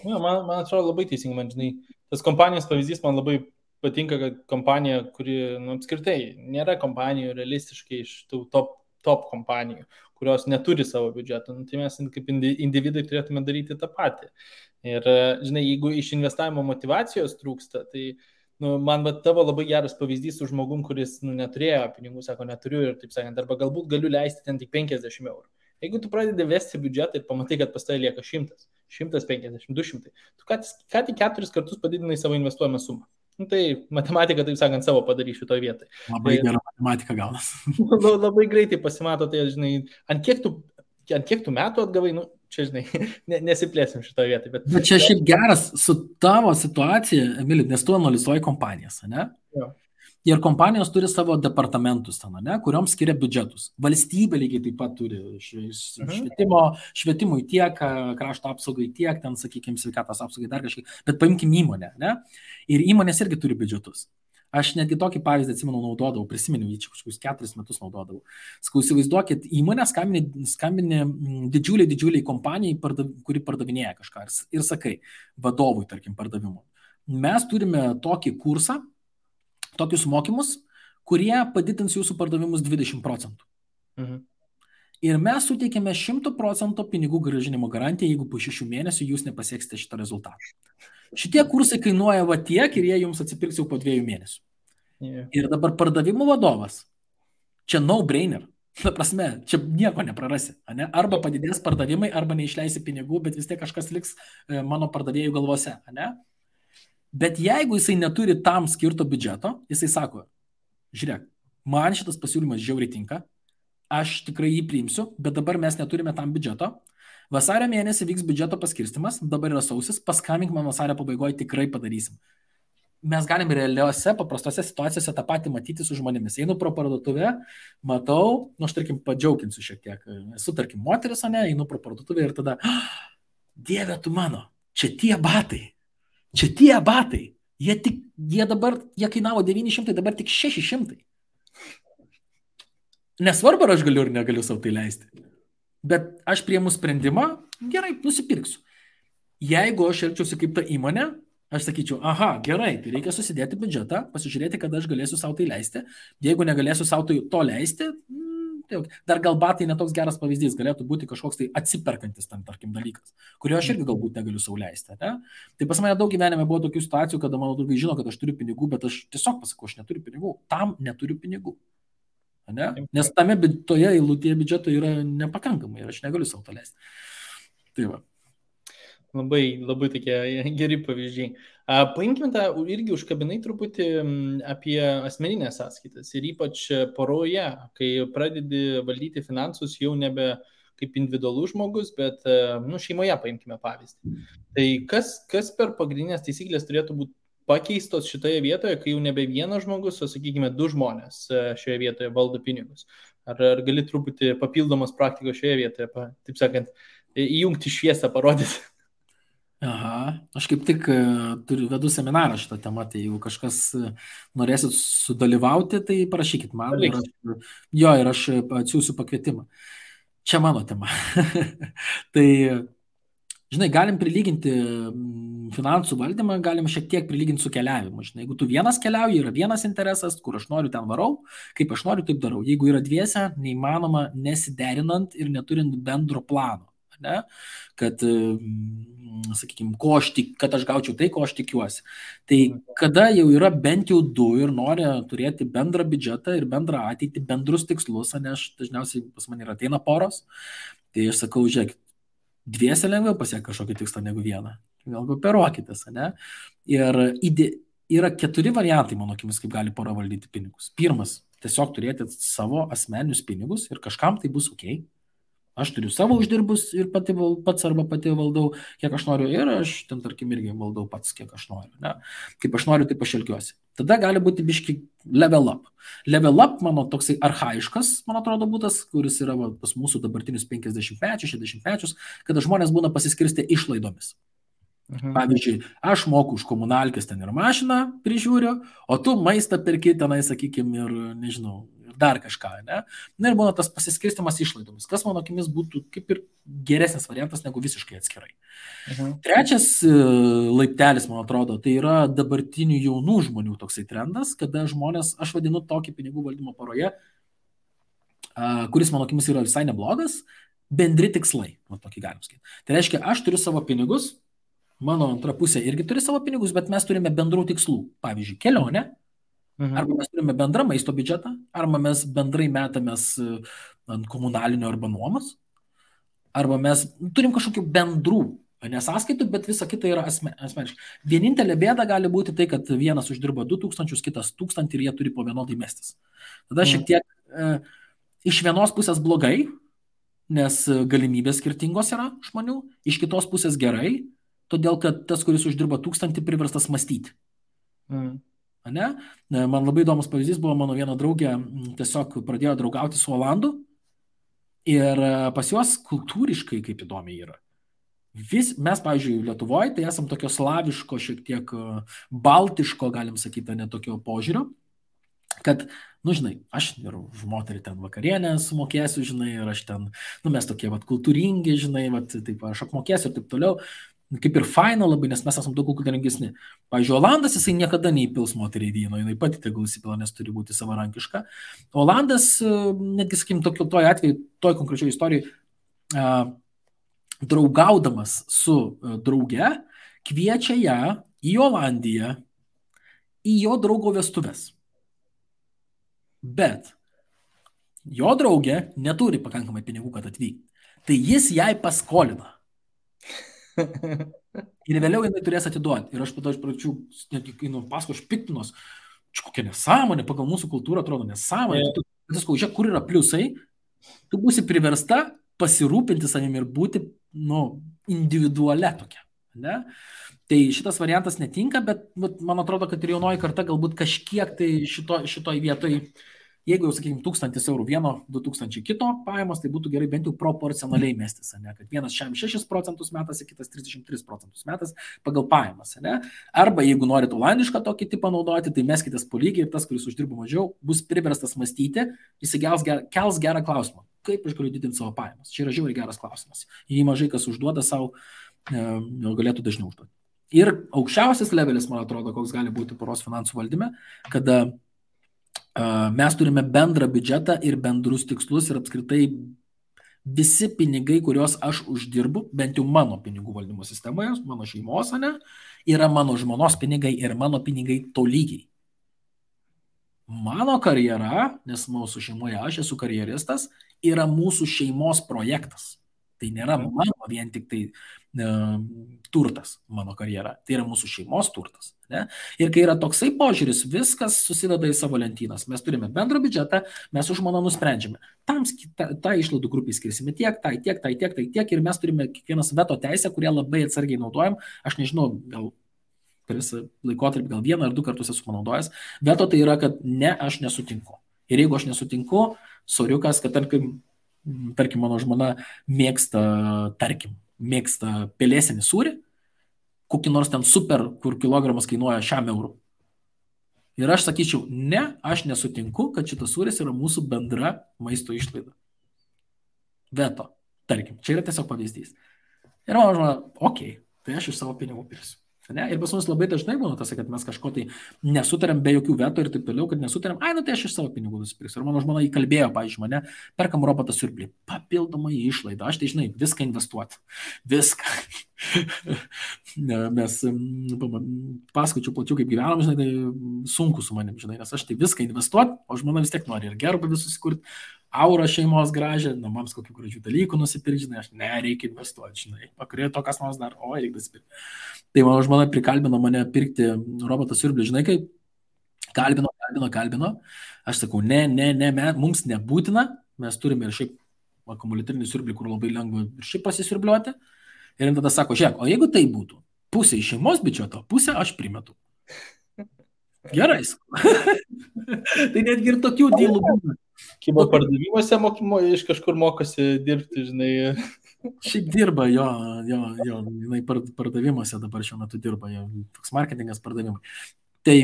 Ja, man atrodo labai teisingai, man žinai, tas kompanijos pavyzdys man labai patinka, kad kompanija, kuri apskritai nėra kompanijų realistiškai iš tų top kompanijų, kurios neturi savo biudžeto. Tai mes kaip individai turėtume daryti tą patį. Ir, žinai, jeigu iš investavimo motivacijos trūksta, tai man tavo labai geras pavyzdys su žmogum, kuris neturėjo pinigų, sako, neturiu ir taip sakant, arba galbūt galiu leisti ten tik 50 eurų. Jeigu tu pradedi vesti biudžetą ir pamatai, kad pas tai lieka 100, 150, 200, tu ką tik 4 kartus padidinai savo investuojamą sumą. Tai matematika, taip sakant, savo padarys šitoje vietoje. Labai gera matematika gaunas. Labai greitai pasimato, tai, žinai, ant kiek tų metų atgavai, čia, žinai, nesiplėsim šitoje vietoje. Bet čia šiaip geras su tavo situacija, Emili, nes tu analizuoji kompanijas, ne? Jo. Ir kompanijos turi savo departamentus ten, ne, kuriuom skiria biudžetus. Valstybė lygiai taip pat turi švietimui tiek, krašto apsaugai tiek, ten, sakykime, sveikatos apsaugai dar kažkiek. Bet paimkim įmonę, ne? Ir įmonės irgi turi biudžetus. Aš netgi tokį pavyzdį atsimenu naudodavau, prisiminiau, jį čia kažkokius 4 metus naudodavau. Sakau, įsivaizduokit, įmonė skambini didžiuliai kompanijai, kuri pardavinėja kažką ir sakai, vadovui, tarkim, pardavimo. Mes turime tokį kursą, tokius mokymus, kurie padidins jūsų pardavimus 20%. Ir mes suteikėme 100% pinigų grąžinimo garantiją, jeigu po 6 mėnesių jūs nepasieksite šitą rezultatą. Šitie kursai kainuoja va tiek ir jie jums atsipirks jau po 2 mėnesių. Ir dabar pardavimų vadovas, čia no-brainer. Ta prasme, čia nieko neprarasi. Ne? Arba padidės pardavimai, arba neišleisi pinigų, bet vis tiek kažkas liks mano pardavėjų galvose. Ne? Bet jeigu jisai neturi tam skirto biudžeto, jisai sako, žiūrėk, man šitas pasiūlymas žiauriai tinka, aš tikrai jį priimsiu, bet dabar mes neturime tam biudžeto. Vasario mėnesį vyks biudžeto paskirstimas, dabar yra sausis, paskambink man vasario pabaigoje, tikrai padarysim. Mes galim realiuose, paprastose situacijose tą patį matyti su žmonėmis. Einu pro parduotuvę, matau, aš tarkim padžiauginsiu šiek tiek, esu tarkim moteris, ne, einu pro parduotuvę ir tada, Dieve tu mano, čia tie batai. Jie kainavo 900, dabar tik 600. Nesvarbu, ar aš galiu ar negaliu savo tai leisti. Bet aš priimu sprendimą, gerai, nusipirksiu. Jeigu aš elgčiausi kaip ta įmonė, aš sakyčiau, aha, gerai, tai reikia susidėti biudžetą, pasižiūrėti, kada aš galėsiu savo tai leisti. Jeigu negalėsiu savo to leisti, dar gal batai netoks geras pavyzdys, galėtų būti kažkoks tai atsiperkantis tam, tarkim, dalykas, kurio aš irgi galbūt negaliu sau leisti. Ne? Tai pas mane daug gyvenime buvo tokių situacijų, kada mano draugai žino, kad aš turiu pinigų, bet aš tiesiog pasakau, aš neturiu pinigų, tam neturiu pinigų. Ne? Nes toje eilutėje biudžeto yra nepakankamai ir aš negaliu sau to leisti. Tai va. Labai tokie geri pavyzdžiai. Paimkime tą irgi užkabinai truputį apie asmeninės sąskaitas ir ypač poroje, kai pradedi valdyti finansus jau nebe kaip individualus žmogus, bet šeimoje paimkime pavyzdį. Tai kas per pagrindinės taisyklės turėtų būti pakeistos šitoje vietoje, kai jau nebe vienas žmogus, o sakykime 2 žmonės šioje vietoje valdo pinigus? Ar gali truputį papildomos praktikos šioje vietoje, taip sakant, įjungti šviesą, parodyti? Aha, aš kaip tik vedu seminarą šitą temą, tai jeigu kažkas norėsit sudalyvauti, tai parašykit man ir aš atsiųsiu pakvietimą. Čia mano tema. Tai, žinai, galim prilyginti finansų valdymą, galim šiek tiek prilyginti su keliavimu. Žinai, jeigu tu vienas keliauji, yra vienas interesas, kur aš noriu, ten varau, kaip aš noriu, taip darau. Jeigu yra dviese, neįmanoma nesiderinant ir neturint bendro plano. Ne? Kad, sakykime, kad aš gaučiau tai, ko aš tikiuosi. Tai kada jau yra bent jau 2 ir nori turėti bendrą biudžetą ir bendrą ateitį, bendrus tikslus, ne, aš dažniausiai pas mane ateina poros, tai aš sakau, žiūrėk, dviese lengviau pasiekti kažkokį tikslą negu vieną. Gal kooperuokitės, ne? Ir yra 4 variantai, mano akimis, kaip gali pora valdyti pinigus. Pirmas, tiesiog turėti savo asmeninius pinigus ir kažkam tai bus ok. Aš turiu savo uždirbus ir pats arba pati valdau, kiek aš noriu, ir aš ten, tarkim, irgi valdau pats, kiek aš noriu. Ne? Kaip aš noriu, taip aš elgiuosi. Tada gali būti biški level up. Level up, mano toksai archaiškas, man atrodo, būtas, kuris yra pas mūsų dabartinius 50-mečius, 60-mečius, kada žmonės būna pasiskirstę išlaidomis. Pavyzdžiui, aš moku už komunalkės ten ir mašiną prižiūriu, o tu maistą perki tenai, sakykime, ir nežinau, dar kažką, ne? Na ir būna tas pasiskirstimas išlaidomis, kas mano akimis būtų kaip ir geresnis variantas negu visiškai atskirai. Trečias laiptelis, man atrodo, tai yra dabartinių jaunų žmonių toksai trendas, kada žmonės, aš vadinu tokį pinigų valdymo poroje, kuris mano akimis yra visai neblogas, bendri tikslai, va tokį galim sakyti. Tai reiškia, aš turiu savo pinigus, mano antra pusė irgi turi savo pinigus, bet mes turime bendrų tikslų. Pavyzdžiui, kelionę, arba mes turime bendrą maisto biudžetą, arba mes bendrai metamės ant komunalinio arba nuomos, arba mes turim kažkokių bendrų nesąskaitų, bet visa kita yra asmeniškai. Vienintelė bėda gali būti tai, kad vienas uždirba 2000, kitas 1000 ir jie turi po vienodai mestis. Tada šiek tiek iš vienos pusės blogai, nes galimybės skirtingos yra žmonių, iš kitos pusės gerai, todėl kad tas, kuris uždirba 1000, priverstas mąstyti. Ne? Man labai įdomus pavyzdys buvo, mano viena draugė tiesiog pradėjo draugauti su Olandu ir pas juos kultūriškai kaip įdomiai yra. Mes, pavyzdžiui, Lietuvoje, tai esam tokio slaviško, šiek tiek baltiško, galim sakyti, netokio požiūrio, kad, žinai, aš ir už moterį ten vakarienę sumokėsiu, žinai, ir aš ten, mes tokie kultūringi, žinai, taip, aš apmokėsiu ir taip toliau. Kaip ir faina labai, nes mes esame daug kultūringesni. Pavyzdžiui, Olandas, jisai niekada neįpils moteriai vyno, jinai pati tegul įsipila, nes turi būti savarankiška. Olandas, netgi, sakykim, toj atveju, toj konkrečioje istorijoje, draugaudamas su drauge, kviečia ją į Olandiją, į jo draugo vestuves. Bet jo draugė neturi pakankamai pinigų, kad atvykti. Tai jis jai paskolina. Ir vėliau jinai turės atiduoti. Ir aš tada iš pradžių, paskui aš piktinos, kokia nesąmonė, pagal mūsų kultūrą atrodo nesąmonė. Tu sakau, žiūrėk, kur yra pliusai, tu būsi priversta pasirūpinti savimi ir būti, individualia tokia. Ne? Tai šitas variantas netinka, bet man atrodo, kad ir jaunoji karta galbūt kažkiek tai šitoj vietoj, jeigu jau, sakykime, 1000 eurų vieno, 2000 kito pajamos, tai būtų gerai bent jau proporcionaliai mestis, ne? Kad vienas 6% metas, kitas 33% metas pagal pajamas. Ne? Arba jeigu norit olandišką tokį tipą naudoti, tai meskitės po lygiai ir tas, kuris uždirba mažiau, bus priverstas mąstyti, jis kels gerą klausimą. Kaip aš galiu didinti savo pajamas? Čia yra žiauriai geras klausimas. Jį mažai kas užduoda savo, galėtų dažniau užduoti. Ir aukščiausias levelis, man atrodo, koks gali būti poros finansų valdyme, kada mes turime bendrą biudžetą ir bendrus tikslus ir apskritai visi pinigai, kuriuos aš uždirbu, bent jau mano pinigų valdymo sistemoje, mano šeimos, yra mano žmonos pinigai ir mano pinigai tolygiai. Mano karjera, nes mūsų šeimoje aš esu karjeristas, yra mūsų šeimos projektas. Tai nėra mano vien tik tai turtas, mano karjera. Tai yra mūsų šeimos turtas. Ne? Ir kai yra toksai požiūris, viskas susideda į savo lentynas. Mes turime bendrą biudžetą, mes už žmoną nusprendžiame. Tą išlaidų grupį skirsime tiek, tiek. Ir mes turime kiekvienas veto teisę, kurią labai atsargiai naudojam. Aš nežinau, gal per visą laikotarpį, gal 1 ar 2 kartus esu panaudojęs. Veto tai yra, kad ne, aš nesutinku. Ir jeigu aš nesutinku, soriukas, kad tarkim, mano žmona mėgsta pelėsinį sūrį, kokį nors ten super, kur kilogramas kainuoja 100 eurų. Ir aš sakyčiau, ne, aš nesutinku, kad šitas sūris yra mūsų bendra maisto išlaida. Veto, tarkim, čia yra tiesiog pavyzdys. Ir mano žmona, okei, tai aš iš savo pinigų pirsiu. Ne? Ir pas mus labai dažnai būna tas, kad mes kažko tai nesutariam be jokių veto ir taip toliau, kad nesutariam, tai aš iš savo pinigų nusipirksiu. Ir mano žmona įkalbėjo, pavyzdžiui, mane, perkam robotą siurblį, papildomą išlaidą, aš tai žinai, viską investuoti, viską. Mes pasakočiau plačiau, kaip gyvenam, žinai, tai sunku su manim, žinai, nes aš tai viską investuoti, o žmona vis tiek nori ir gerbavį susikurti, aurą šeimos gražią, namams kokių gražių dalykų nusipirkti, žinai, aš nereikia investuoti, žinai, pakurėjo to, kas nors dar, reikia nusipirkti. Tai mano žmona prikalbino mane pirkti robotą siurblį, žinai, kaip kalbino, aš sakau, ne, mums nebūtina, mes turime ir šiaip akumuliatrinį siurblį, kur labai lengva ir šiaip pasisiurbliuoti, ir tada sako, žiūrėk, o jeigu tai būtų, pusė iš šeimos biudžeto, pusę aš primetu. Gerai. Tai netgi ir tokių dylų būna. Kybo pardavimuose iš kažkur mokosi dirbti, žinai. Šiaip dirba, jo, jinai pardavimuose dabar šiuo metu dirba, jo, toks marketingas pardavimai. Tai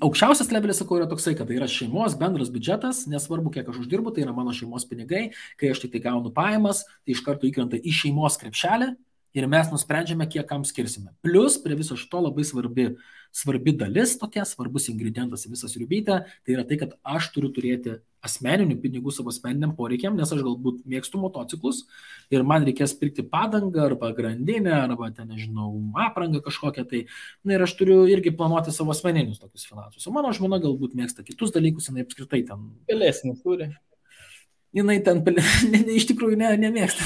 aukščiausias levelis, sakau, yra toksai, kad tai yra šeimos bendras biudžetas, nesvarbu, kiek aš uždirbu, tai yra mano šeimos pinigai, kai aš tik tai gaunu pajamas, tai iš karto įkrenta į šeimos krepšelį Ir mes nusprendžiame, kiek kam skirsime. Plus, prie viso šito labai svarbi dalis, tokia svarbus ingredientas į visą sriubytę, tai yra tai, kad aš turiu turėti asmeninių pinigų savo asmeniniam poreikiam, nes aš galbūt mėgstu motociklus ir man reikės pirkti padangą arba grandinę, arba ten, nežinau, aprangą kažkokią, tai ir aš turiu irgi planuoti savo asmeninius tokius finansus. O mano žmona galbūt mėgsta kitus dalykus, jinai apskritai ten... Pelėsinį turi. Jinai ten, iš tikrųjų nemėgsta,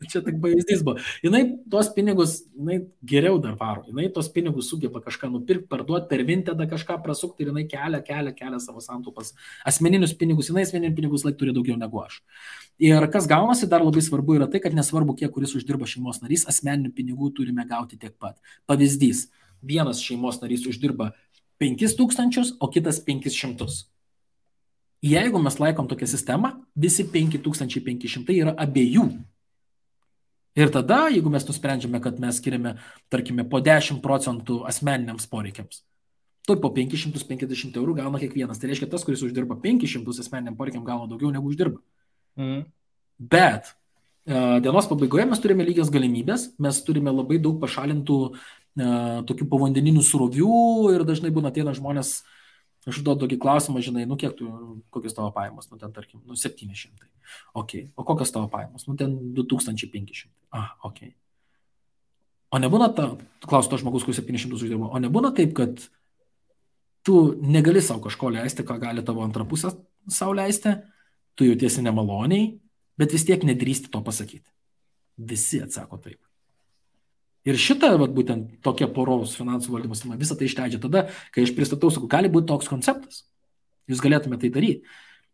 čia tik pavyzdys buvo. Jinai tos pinigus, jinai geriau dar varo, jinai tos pinigus sugeba kažką nupirkti, parduoti, per Vintedą kažką prasukti ir jinai kelia savo santaupas. Asmeninius pinigus, jinai asmeninius pinigus laik turi daugiau negu aš. Ir kas gaunasi, dar labai svarbu yra tai, kad nesvarbu, kiek kuris uždirba šeimos narys, asmeninių pinigų turime gauti tiek pat. Pavyzdys, vienas šeimos narys uždirba 5000, o kitas 500. Jeigu mes laikom tokią sistemą, visi 5500 yra abiejų. Ir tada, jeigu mes nusprendžiame, kad mes skiriame, tarkime, po 10% asmeniniams poreikiams, tai po 550 eurų gauna kiekvienas. Tai reiškia, tas, kuris uždirba 500 asmeniniam poreikiam, gauna daugiau negu uždirba. Bet dienos pabaigoje mes turime lygias galimybės, mes turime labai daug pašalintų tokių povandeninių srovių ir dažnai būna ateina žmonės. Aš užduodu tokį klausimą, žinai, kiek tu, kokios tavo pajamos, ten, tarkim, 700. Ok. O kokios tavo pajamos? Ten 2500. Ok. O nebūna klausiu to žmogus, kuris 700 uždirba, o nebūna taip, kad tu negali savo kažko leisti, ką gali tavo antra pusė savo leisti, tu jautiesi nemaloniai, bet vis tiek nedrįsti to pasakyti. Visi atsako taip. Ir šitą, būtent tokia poros finansų valdymo sistema, visą tai išleidžia tada, kai aš pristatau, sakau, gali būti toks konceptas. Jūs galėtume tai daryti.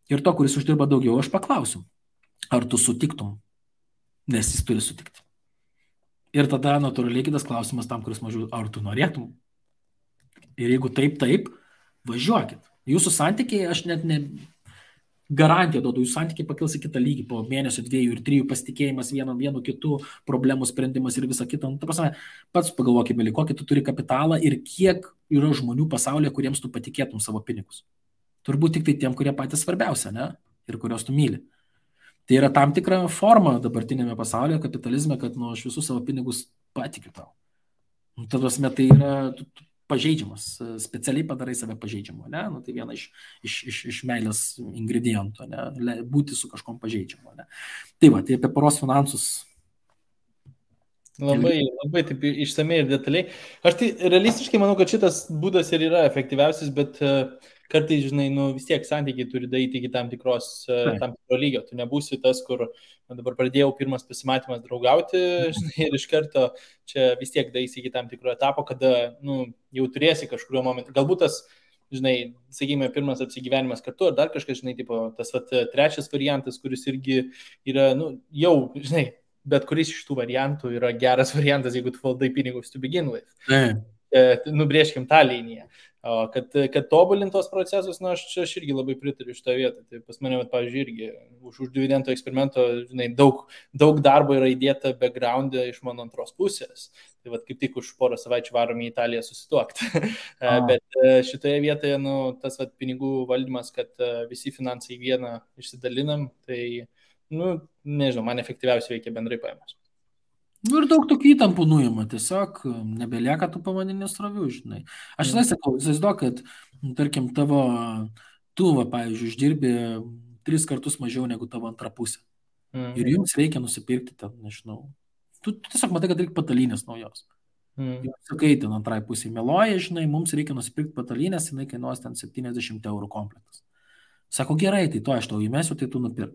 Ir to, kuris uždirba daugiau, aš paklausiu, ar tu sutiktum, nes jis turi sutikti. Ir tada natūraliai kitas klausimas tam, kuris mažiau, ar tu norėtum. Ir jeigu taip, važiuokit. Jūsų santykiai, aš net garantiją duodu, jūsų santykiai pakils į kitą lygį po mėnesio, 2 ir 3 pasitikėjimas vienu kitu, problemų sprendimas ir visa kita. Ta prasme, pats pagalvokime, kokį tu turi kapitalą ir kiek yra žmonių pasaulyje, kuriems tu patikėtum savo pinigus. Turbūt tik tai tiem, kurie patys svarbiausia, ne? Ir kurios tu myli. Tai yra tam tikra forma dabartinėme pasaulyje, kapitalizme, kad aš visus savo pinigus patikiu tau. Ta prasme, tai yra pažeidžiamas, specialiai padarai save pažeidžiamu, ne? Tai viena iš meilės ingredientų, ne? Būti su kažkom pažeidžiamu, ne? Tai va, tai apie poros finansus. Labai taip išsamei ir detaliai. Aš tai realistiškai manau, kad šitas būdas ir yra efektyviausias, bet kartais, žinai, vis tiek santykiai turi daryti iki tam tikro lygio. Tu nebūsi tas, kur dabar pradėjau pirmas pasimatymas draugauti, žinai, ir iš karto čia vis tiek daisi iki tam tikro etapo, kada jau turėsi kažkurio momentu. Galbūt tas, žinai, sakykime, pirmas apsigyvenimas kartu, ar dar kažkas, žinai, tipo, tas trečias variantas, kuris irgi yra, jau, žinai, bet kuris iš tų variantų yra geras variantas, jeigu tu valdai pinigus to begin with. Nubrėžkim tą liniją. O kad tobulintos procesus, aš irgi labai pritariu šitą vietą. Tai pas mane, pavyzdžiui, irgi už dividendo eksperimento, žinai, daug darbo yra įdėta background'e iš mano antros pusės. Tai kaip tik už porą savaičių varom į Italiją susituokti. Bet šitoje vietoje, tas pinigų valdymas, kad visi finansai vieną išsidalinam, tai, nežinau, man efektyviausiai veikia bendrai paėmus. Ir daug tokių įtampų nuima, tiesiog nebelieka tų pavadinės srovių, žinai. Aš sakau, įsivaizduok, kad, tarkim, tu, pavyzdžiui, uždirbi 3 kartus mažiau negu tavo antra pusė. Ir jums reikia nusipirkti ten, nežinau. Tu tiesiog matai, kad reikia patalynės naujos. Jums sakai, ten antrai pusė meluoja, žinai, mums reikia nusipirkti patalynės, jinai kainuos ten 70 eurų komplektas. Sako, gerai, tai to aš tau įmesiu, tai tu nupirk.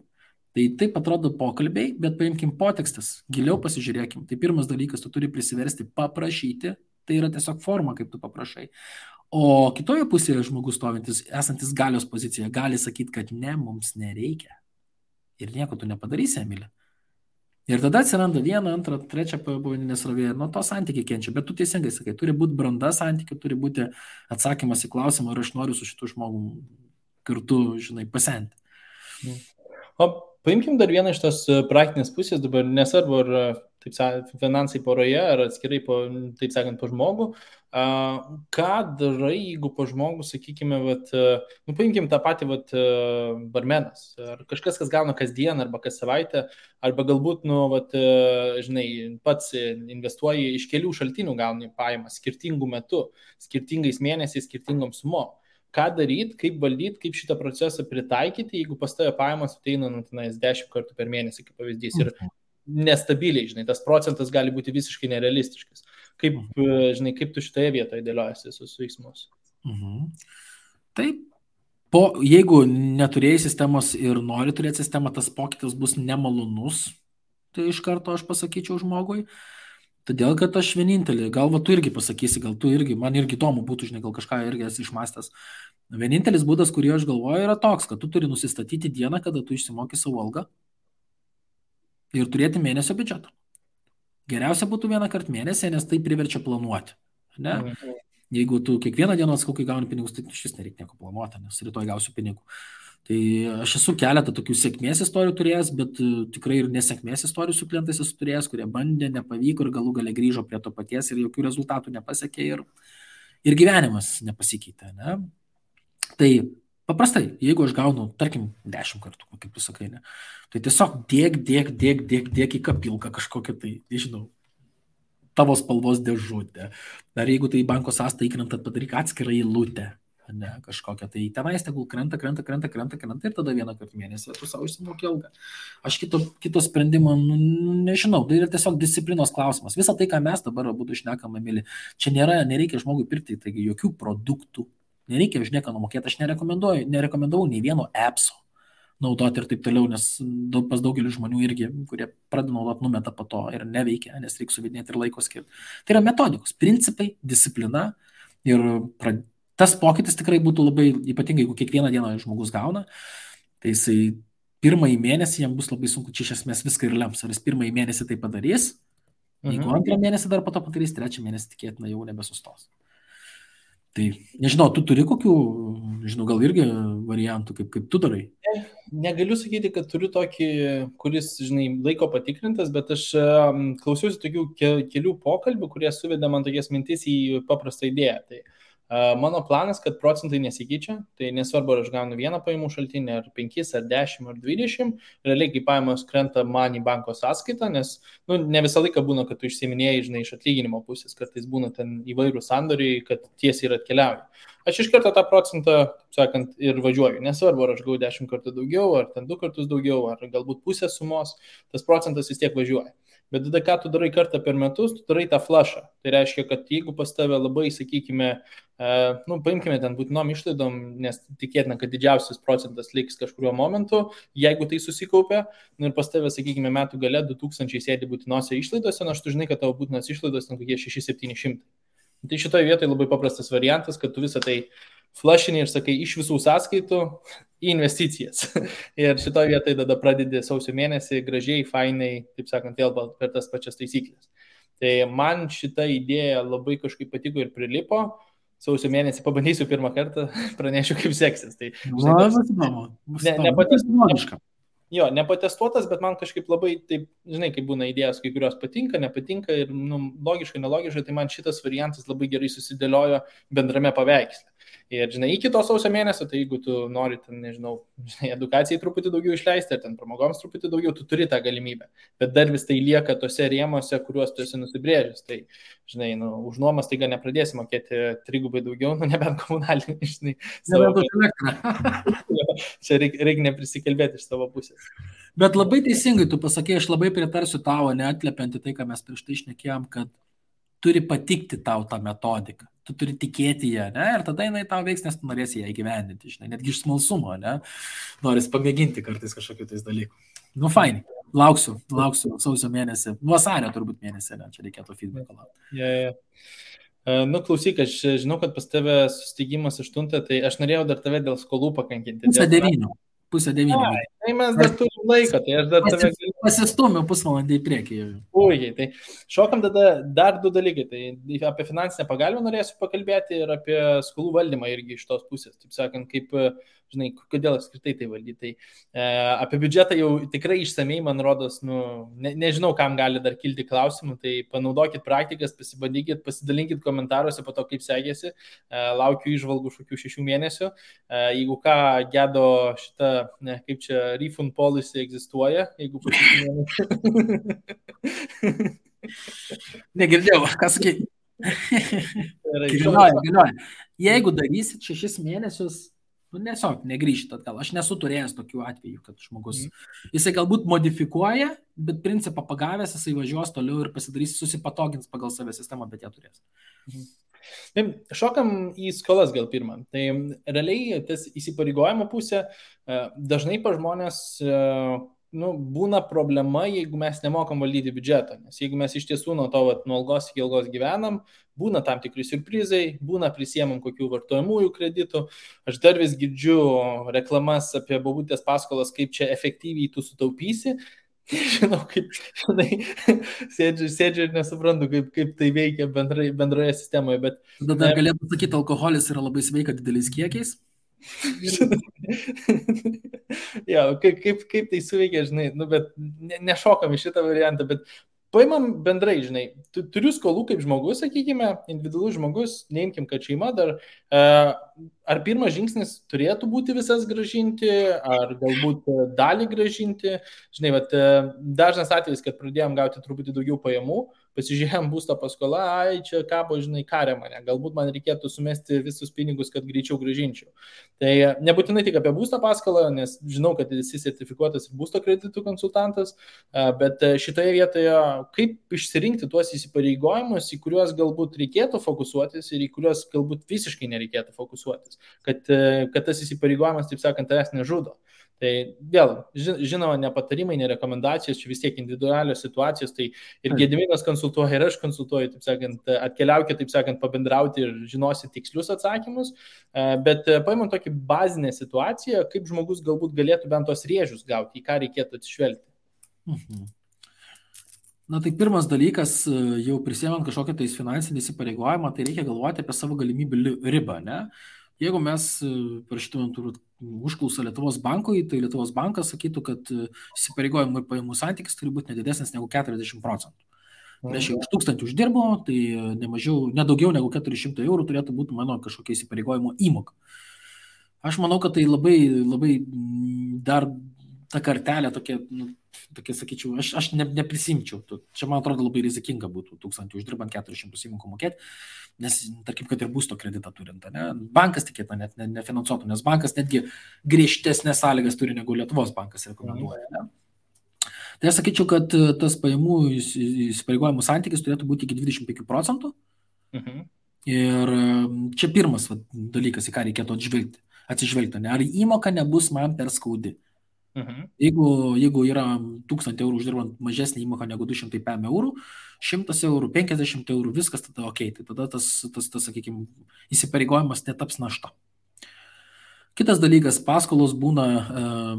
Tai taip atrodo pokalbiai, bet paimkim potekstas, giliau pasižiūrėkim. Tai pirmas dalykas, tu turi prisiversti paprašyti, tai yra tiesiog forma, kaip tu paprašai. O kitoje pusėje žmogus stovintis, esantis galios pozicijoje, gali sakyti, kad ne, mums nereikia. Ir nieko tu nepadarysi, Emilė. Ir tada atsiranda 1, 2, 3 pavadinė srovė, nuo to santykiai kenčia. Bet tu teisingai sakai, turi būti branda santykių, turi būti atsakymas į klausimą, ar aš noriu su šitu žmogum kartu, žinai, pasenti. O Paimkim dar vieną iš tos praktinės pusės, dabar nesvarbu, ar taip sakant, finansai poroje, ar atskirai, taip sakant, po žmogų. Ką darai, jeigu po žmogų, sakykime, paimkim tą patį barmenas, ar kažkas, kas gauna kasdien, arba kas savaitę, arba galbūt, žinai, pats investuoji iš kelių šaltinių gauni pajamas skirtingų metų, skirtingais mėnesiais, skirtingom sumom. Ką daryti, kaip valdyti, kaip šitą procesą pritaikyti, jeigu pas tave pajamos ateina 10 kartų per mėnesį, kaip pavyzdys, ir nestabiliai, žinai, tas procentas gali būti visiškai nerealistiškas. Kaip, žinai, kaip tu šitoje vietoje dėliojasi visus veiksmus? Taip, jeigu neturėjai sistemos ir nori turėti sistemą, tas pokytis bus nemalonus, tai iš karto aš pasakyčiau žmogui. Todėl, kad aš vienintelį, gal tu irgi pasakysi, gal tu irgi, man irgi įdomu būtų, žinai, gal kažką irgi esi išmastęs. Vienintelis būdas, kurį aš galvoju, yra toks, kad tu turi nusistatyti dieną, kada tu išsimoki savo algą ir turėti mėnesio biudžetą. Geriausia būtų vieną kartą mėnesį, nes tai priverčia planuoti. Ne? Jeigu tu kiekvieną dieną atskaukai gauni pinigus, tai šis nereikia nieko planuoti, nes rytoj gausiu pinigų. Tai aš esu keletą tokių sėkmės istorijų turėjęs, bet tikrai ir nesėkmės istorijų su klientais esu turėjęs, kurie bandė, nepavyko ir galų gale grįžo prie to paties ir jokių rezultatų nepasiekė ir gyvenimas nepasikeitė. Ne? Tai paprastai, jeigu aš gaunu, tarkim, 10 kartų, kaip tu sakai, ne, tai tiesiog dėk į kapilką kažkokią tai, nežinau, tavo spalvos dėžutę. Dar jeigu tai banko sąskaitą įkrenta, padaryk atskirą eilutę. Ne, kažkokia, tai tenais tegul krenta ir tada vieną kartą mėnesį tu savo išsimoki algą. Aš kito sprendimo nežinau, tai yra tiesiog disciplinos klausimas. Visą tai, ką mes dabar būtų šnekame, mėly, čia nereikia žmogui pirkti, taigi jokių produktų, nereikia už nieką numokėti, aš nerekomendavau nei vieno appso naudoti ir taip toliau, nes pas daugelį žmonių irgi, kurie pradeda naudoti, numeta po to ir neveikia, nes reikia suvedinėti ir laiko skirti. Tai yra metodikos, principai, disciplina ir tas pokytis tikrai būtų labai ypatingai, jeigu kiekvieną dieną žmogus gauna, tai jisai pirmąjį mėnesį jam bus labai sunku, čia iš esmės viską ir lems, ar jis pirmąjį mėnesį tai padarys, jeigu antrą mėnesį dar po to padarys, trečią mėnesį tikėtina jau nebesustos. Tai nežinau, tu turi kokių, žinau, gal irgi variantų, kaip tu darai? Negaliu sakyti, kad turiu tokį, kuris, žinai, laiko patikrintas, bet aš klausiausi tokių kelių pokalbių, kurie suvedė man tokias mintis į paprastą idėją. Tai mano planas, kad procentai nesikeičia, tai nesvarbu, ar aš gaunu vieną pajamų šaltinį, ar 5, ar 10, ar 20, realiai, kai pajamos krenta man į banko sąskaitą, nes ne visą laiką būna, kad tu išsiminėjai, žinai, iš atlyginimo pusės, kartais būna ten įvairių sandoriai, kad tiesiai ir atkeliauja. Aš iš karto tą procentą, sakant, ir važiuoju. Nesvarbu, ar aš gau 10 kartų daugiau, ar ten 2 kartus daugiau, ar galbūt pusę sumos, tas procentas vis tiek važiuoja. Bet tada, ką tu darai kartą per metus, tu darai tą flushą. Tai reiškia, kad jeigu pas tave labai, sakykime, paimkime ten būtinom išlaidom, nes tikėtina, kad didžiausias procentas liks kažkuriuo momentu, jeigu tai susikaupia, ir pas tave, sakykime, metų gale 2000 sėdi būtinose išlaidose, nors tu žinai, kad tavo būtinos išlaidos ten kokie 600-700. Tai šitoje vietoje labai paprastas variantas, kad tu visą tai flushini ir sakai iš visų sąskaitų į investicijas. Ir šitoje vietoje tada pradedi sausio mėnesį gražiai, fainai, taip sakant, vėl per tas pačias taisyklės. Tai man šita idėja labai kažkaip patiko ir prilipo. Sausio mėnesį pabandysiu pirmą kartą, pranešiu, kaip seksis. Tai, nepatestuotas, bet man kažkaip labai, taip, žinai, kaip būna idėjos, kai kurios patinka, nepatinka ir logiškai, nelogiškai, tai man šitas variantas labai gerai susidėliojo bendrame paveiksle. Ir, žinai, iki to sausio mėnesio, tai jeigu tu nori, ten, nežinau, edukacijai truputį daugiau išleisti, ar ten pramogoms truputį daugiau, tu turi tą galimybę. Bet dar vis tai lieka tose rėmose, kuriuos tu esi nusibrėžęs. Tai, žinai, už nuomas taiga nepradėsi mokėti 3 daugiau, nebent komunalinį, žinai. Čia reikia neprisikalbėti iš savo pusės. Bet labai teisingai tu pasakė, aš labai pritarsiu tavo, neatliepianti tai, ką mes prieš tai šnekėjom, kad turi patikti tau tą metodiką. Tu turi tikėti ją, ne? Ir tada jinai tau veiks, nes tu norėsi ją įgyvendinti, žinai, netgi iš smalsumo, ne? Norisi pamėginti kartais kažkokiu tais dalykų. Fainai, lauksiu sausio mėnesį, vasario turbūt mėnesį, ne? Čia reikėtų feedbacko laukti. Klausyk, aš žinau, kad pas tave susitikimas 8, tai aš norėjau dar tave dėl skolų pakankinti. Pusę 9. Tai mes dar turim laiko, tai aš dar tave galiu. Pasistumiu pusvalandį į priekį. Puikiai, tai šokam tada dar du dalykai. Tai apie finansinę pagalbą norėsiu pakalbėti ir apie skolų valdymą irgi iš tos pusės. Taip sakant, kaip, žinai, kodėl apskritai tai valdyti. Tai apie biudžetą jau tikrai išsamei, man rodos, nežinau, kam gali dar kilti klausimų, tai panaudokit praktikas, pasibandykit, pasidalinkit komentaruose po to, kaip sekėsi. Laukiu išvalgų šokių 6 mėnesių. Jeigu ką, Gedo šitą, kaip čia, refund policy egzistuoja, jeigu po 6 mėnesių. Negirdėjau, ką sakai. Galioja. Jeigu darysit 6 mėnesius, tiesiog negrįžit atgal. Aš nesu turėjęs tokių atvejų, kad žmogus, jisai galbūt modifikuoja, bet principą pagavęs, jisai važiuos toliau ir pasidarys, susipatogins pagal save sistemą, bet ją turės. Tai šokam į skolas gal pirmą. Tai realiai tas įsipareigojimo pusė dažnai pa žmonės būna problema, jeigu mes nemokam valdyti biudžetą. Nes jeigu mes iš tiesų nuo algos iki algos gyvenam, būna tam tikri siurprizai, būna prisiemam kokių vartojamųjų kreditų. Aš dar vis girdžiu reklamas apie bobutės paskolas, kaip čia efektyviai tu sutaupysi. Žinau, kaip, sėdžiu ir nesuprantu, kaip tai veikia bendroje sistemoje. Bet tada galėtų sakyti, alkoholis yra labai sveika dideliais kiekiais. Ja, kaip tai suveikia, žinai, bet nešokam į šitą variantą, bet paimam bendrai, žinai, turiu skolų kaip žmogus, sakykime, individualus žmogus, neimkim, kad šeima dar, ar pirmas žingsnis turėtų būti visas gražinti, ar galbūt dalį gražinti, žinai, dažnas atvejis, kad pradėjom gauti truputį daugiau pajamų, pasižiūrėjom būsto paskolą, čia kabo, žinai, karė mane, galbūt man reikėtų sumesti visus pinigus, kad greičiau gražinčiau. Tai nebūtinai tik apie būsto paskolą, nes žinau, kad esi sertifikuotas ir būsto kreditų konsultantas, bet šitoje vietoje kaip išsirinkti tuos įsipareigojimus, į kuriuos galbūt reikėtų fokusuotis ir į kuriuos galbūt visiškai nereikėtų fokusuotis, kad tas įsipareigojimas, taip sakant, tavęs nežudo. Tai vėl, žinoma, ne patarimai, ne rekomendacijos, čia vis tiek individualios situacijos, tai ir Gediminas konsultuoja, ir aš konsultuoju, taip sakant, atkeliaukite, taip sakant, pabendrauti ir žinosi tikslius atsakymus, bet paimant tokį bazinę situaciją, kaip žmogus galbūt galėtų bent tos rėžius gauti, į ką reikėtų atsižvelgti. Na tai pirmas dalykas, jau prisiemant kažkokią tais finansinį įsipareigojimą, tai reikia galvoti apie savo galimybių ribą, ne? Jeigu mes parašytumėm užklausą Lietuvos bankui, tai Lietuvos bankas sakytų, kad įsipareigojimų ir pajamų santykis turi būti nedidesnis negu 40%. Reiškia, už 1000 uždirbo, tai nedaugiau negu 400 eurų turėtų būti mano kažkokia įsipareigojimo įmoka. Aš manau, kad tai labai, labai dar ta kartelė tokia, sakyčiau, aš neprisimčiau. Čia, man atrodo, labai rizikinga būtų 1000 uždirbant 400 įmokų mokėti, nes, tarkim, kad ir būsto kreditą turint, ne? Bankas tikėtina net nefinansuotų, nes bankas netgi griežtesnės sąlygas turi negu Lietuvos bankas rekomenduoja. Ne? Tai aš sakyčiau, kad tas pajamų įsipareigojimų santykis turėtų būti iki 25%. Ir čia pirmas dalykas, į ką reikėtų atsižvelgti, ne? Ar įmoka nebus man per skaudi. Jeigu yra 1000 eurų uždirbant mažesnį įmoką negu 200 eurų, 100 eurų, 50 eurų, viskas tada ok, tai tada tas sakykime, įsipareigojimas netaps našta. Kitas dalykas, paskolos būna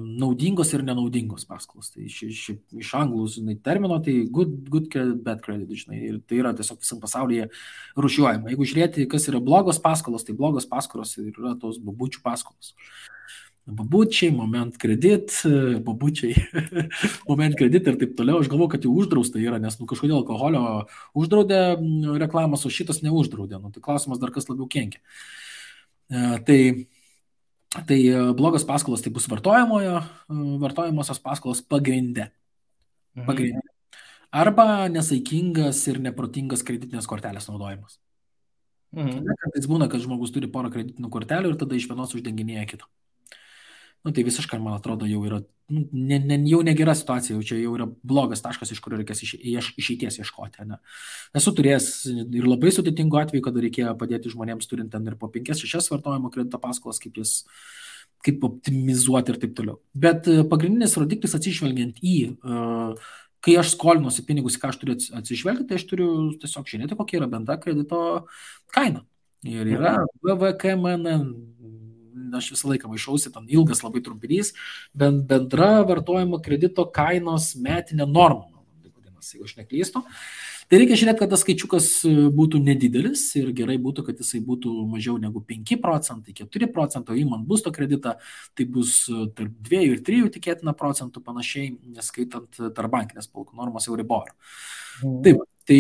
naudingos ir nenaudingos paskolos. Tai iš anglų termino, tai good credit, bad credit, žinai, ir tai yra tiesiog visam pasaulyje rūšiuojama. Jeigu žiūrėti, kas yra blogos paskolos, tai blogos paskolos yra tos babučių paskolos. Babučiai, moment kredit, babučiai, moment kredit ir taip toliau. Aš galvoju, kad jau uždrausta yra, nes kažkodėl alkoholio uždraudė reklamas, o šitas neuždraudė. Tai klausimas dar kas labiau kenkia. Tai blogos paskolos tai bus vartojamosios paskolos pagrinde. Arba nesaikingas ir neprotingas kreditinės kortelės naudojimas. Kartais būna, kad žmogus turi porą kreditinių kortelių ir tada iš vienos uždenginėja kitą. Tai visiškai, man atrodo, jau yra jau negera situacija, jau yra blogas taškas, iš kurio reikės išeities ieškoti. Ne? Esu turėjęs ir labai sudėtingų atvejų, kada reikėjo padėti žmonėms turint ten ir po 5-6 vartojimo kredito paskolas, kaip optimizuoti ir taip toliau. Bet pagrindinis rodiklis atsižvelgiant į, kai aš skolinuosi pinigus, ką aš turiu atsižvelgti, tai aš turiu tiesiog žiūrėti, kokia yra bendra kredito kaina. Ir yra VVKMN aš visą laiką maišausi, ten ilgas labai trumpinys, bendra vartojimo kredito kainos metinė norma, jeigu aš neklystu. Tai reikia žiūrėti, kad tas skaičiukas būtų nedidelis ir gerai būtų, kad jisai būtų mažiau negu 5 procentai, 4 procentai, o įmant būsto kreditą, tai bus tarp 2 ir 3 tikėtina procentų panašiai, neskaitant tarpbankinės palūkanų normos Euribor. Taip, tai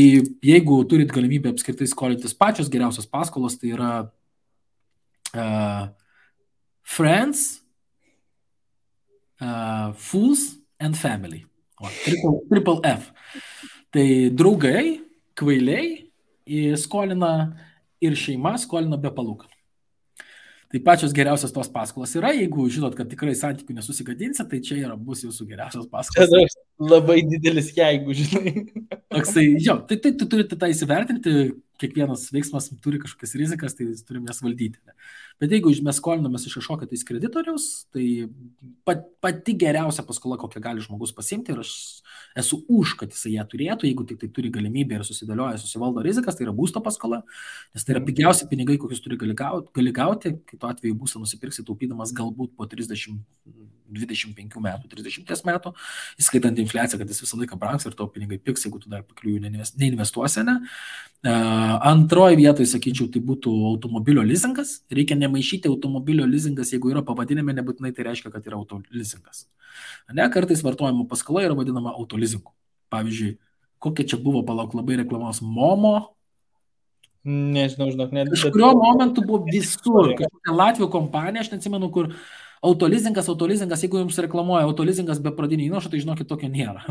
jeigu turit galimybę apskritai skolintis pačios geriausios paskolos, tai yra friends, fools and family. Triple F. Tai draugai, kvailiai skolina ir šeima skolina be palūkanų. Tai pačios geriausios tos paskolos yra, jeigu žinot, kad tikrai santykių nesusigadinsit, tai čia bus jūsų geriausios paskolos. Čia labai didelis jeigu, žinai. Toksai, jo, tai turite tą įsivertinti, kiekvienas veiksmas turi kažkokias rizikas, tai turim jas valdyti. Ne? Bet jeigu mes skolinomės iš kažkokio tais kreditoriaus, tai pati geriausia paskola, kokią gali žmogus pasiimti, ir aš esu už, kad jisai ją turėtų, jeigu tik tai turi galimybę ir susivaldo rizikas, tai yra būsto paskola, nes tai yra pigiausi pinigai, kokius gali gauti, kitu atveju būstą nusipirksi taupydamas galbūt po 30, 25 metų, 30 metų, įskaitant infliaciją, kad jis visą laiką brangs ir tavo pinigai pigs, jeigu tu dar pakliųjų neinvestuosi, ne? Antroji vietoje, sakyčiau, tai būtų automobilio leasingas. Reikia nemaišyti automobilio leasingas, jeigu yra pavadinime, nebūtinai tai reiškia, kad yra autoleasingas. Ne, kartais vartojimo paskola yra vadinama autoleasingu. Pavyzdžiui, kokia čia buvo, palauk, labai reklamos Momo. Nežinau, net. Kažkurio momentu buvo visur. Kažkokia Latvijos kompanija, aš neatsimenu, kur autoleasingas, jeigu jums reklamuoja autoleasingas be pradinio įnašo, tai žinokit, tokio nėra.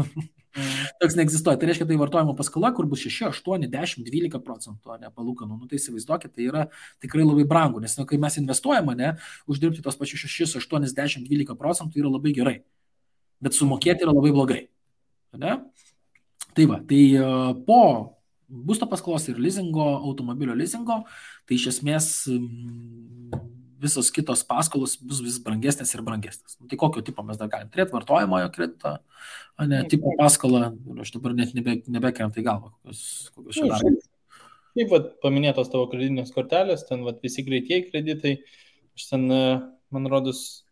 Toks neegzistuoja. Tai reiškia, tai vartojimo paskola, kur bus 6, 8, 10, 12 procentų, ne palūkanų. Nu, tai įsivaizduokit, tai yra tikrai labai brangu, nes kai mes investuojame, ne, uždirbti tos pačius 6, 8, 10, 12 procentų yra labai gerai. Bet sumokėti yra labai blogai. Ne? Tai va, tai po būsto paskolos ir leasingo, automobilio leasingo, tai iš esmės visos kitos paskolos bus vis brangesnės ir brangesnės. Tai kokio tipo mes dar galim turėti? Vartojamojo kredito, ne, tipo paskolą, aš dabar net nebekrenta į galvą, kokios čia dar. Kaip paminėtos tavo kreditinės kortelės, ten visi greitieji kreditai, aš ten, man rodos,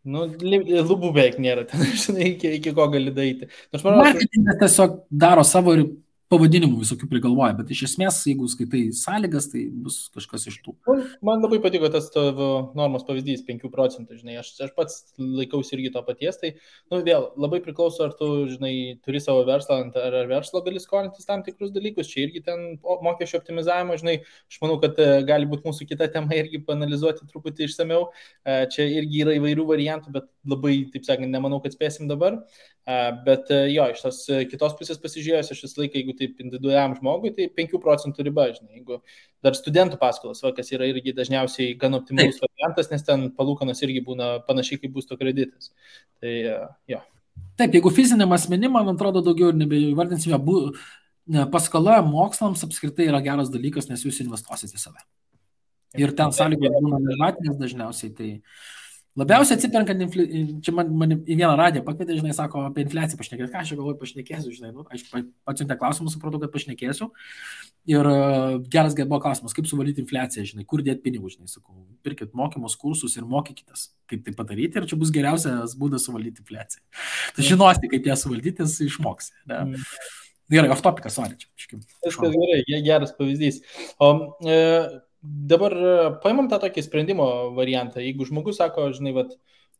lubų beveik nėra, ten, žinai, iki ko gali daryti. Marketingas tiesiog daro savo ir pavadinimų visokių prigalvoja, bet iš esmės, jeigu skaitai sąlygas, tai bus kažkas iš tų. Man labai patiko tas tavo normos pavyzdys, 5 procentų, žinai, aš pats laikausi irgi to paties, tai, vėl, labai priklauso, ar tu, žinai, turi savo verslą, ar verslo gali skolintis tam tikrus dalykus, čia irgi ten mokesčio optimizavimo, žinai, aš manau, kad gali būti mūsų kita tema irgi panalizuoti truputį išsameu, čia irgi yra įvairių variantų, bet labai, taip sakant, nemanau, kad spėsim dabar, bet jo, iš tos kitos pusės pasižiūrėjus, aš visą laiką, jeigu taip individualiam žmogui, tai 5 procentų riba, žinai, jeigu dar studentų paskolas, kas yra irgi dažniausiai gan optimalus variantas, nes ten palūkanos irgi būna panašiai kaip būsto kreditas. Tai jo. Taip, jeigu fiziniam asmenim, man atrodo, daugiau ir nebevardinsime, paskola mokslams apskritai yra geras dalykas, nes jūs investuosite į save. Ir ten sąlygos būna nežmatinės dažniausiai, tai labiausiai atsiperkant, čia man į vieną radiją pakvietė, žinai, sako, apie infliaciją pašnekėti, ką aš galvoju pašnekėsiu, žinai, aš atsiuntė klausimus, supratau, kad pašnekėsiu. Ir geras buvo klausimas, kaip suvaldyti infliaciją, žinai, kur dėti pinigų, žinai, sakau, pirkit mokymus, kursus ir mokykitės, kaip tai padaryti, ir čia bus geriausias būdas suvaldyti infliaciją. Tai žinosi, kaip ją suvaldyti, išmoksi. Ne? Gerai, off topikas, sorry. Viskas gerai, geras pavyzdys. O dabar paimam tą tokį sprendimo variantą. Jeigu žmogus sako, žinai,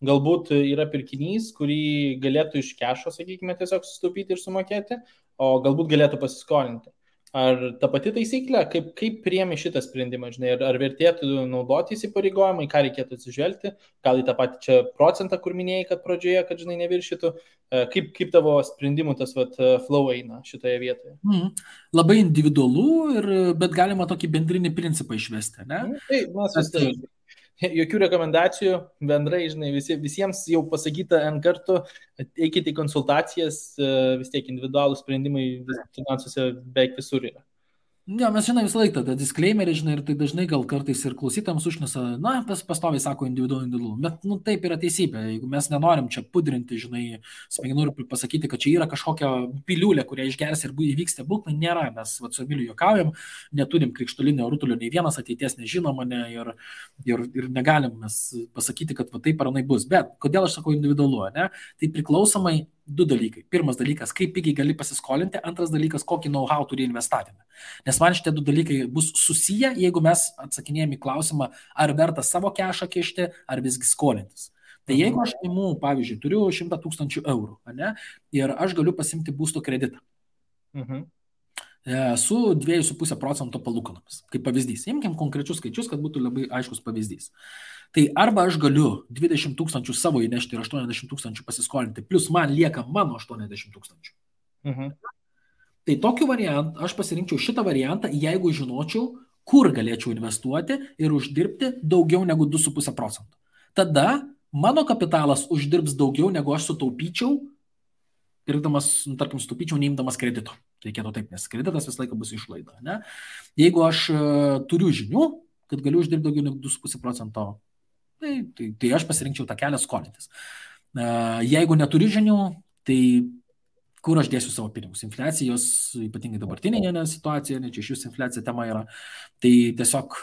galbūt yra pirkinys, kurį galėtų iš kešo, sakykime, tiesiog sutaupyti ir sumokėti, o galbūt galėtų pasiskolinti. Ar ta pati taisyklė, kaip priėmė šitą sprendimą, žinai, ar vertėtų naudoti įsipareigojimą, ką reikėtų atsižvelgti, gal į tą patį čia procentą, kur minėjai, kad pradžioje, kad, žinai, neviršytų, kaip tavo sprendimų tas flow eina šitoje vietoje? Labai individualu, bet galima tokį bendrinį principą išvesti, ne? Tai, mes jokių rekomendacijų, bendrai, žinai, visiems jau pasakyta N kartų, eikite į konsultacijas, vis tiek individualūs sprendimai finansuose beveik visur yra. Ne, mes žinai visą laiką tą disclaimerį, žinai, ir tai dažnai gal kartais ir klausytams užnesa, na, pastoviai sako individualu, bet, nu, taip yra teisybė, jeigu mes nenorim čia pudrinti, žinai, smegenų ir pasakyti, kad čia yra kažkokia piliulė, kurią išgers ir įvyks stebuklai, nėra, mes su Emiliu juokaujam, neturim krikštolinio rutulio, nei vienas ateities nežinoma, ne, ir negalim mes pasakyti, kad va taip ar anai bus, bet kodėl aš sakau individualu, ne, tai priklausomai du dalykai. Pirmas dalykas, kaip pigiai gali pasiskolinti, antras dalykas, kokį know-how turi investavime. Nes man šitie du dalykai bus susiję, jeigu mes atsakinėjame į klausimą, ar verta savo kešą kišti, ar visgi skolintis. Tai jeigu aš imu, pavyzdžiui, turiu 100 000 eurų, ne, ir aš galiu pasimti būsto kreditą su 2,5% palūkanomis, kaip pavyzdys. Imkim konkrečius skaičius, kad būtų labai aiškus pavyzdys. Tai arba aš galiu 20 000 savo įnešti ir 80 000 pasiskolinti, plus man lieka mano 80 000. Tai tokiu variantu aš pasirinkčiau šitą variantą, jeigu žinočiau, kur galėčiau investuoti ir uždirbti daugiau negu 2,5%. Tada mano kapitalas uždirbs daugiau, negu aš sutaupyčiau, pirkdamas, tarkim, sutaupyčiau neimdamas kredito. Reikėtų taip, nes kreditas visą laiką bus išlaida. Ne? Jeigu aš turiu žinių, kad galiu uždirbti daugiau negu 2,5%, tai aš pasirinkčiau tą kelią skolintis. Jeigu neturiu žinių, tai kur aš dėsiu savo pinigus? Infliacijos, ypatingai dabartinėje situacijoje, ne čia iš jūsų infliacija tema yra, tai tiesiog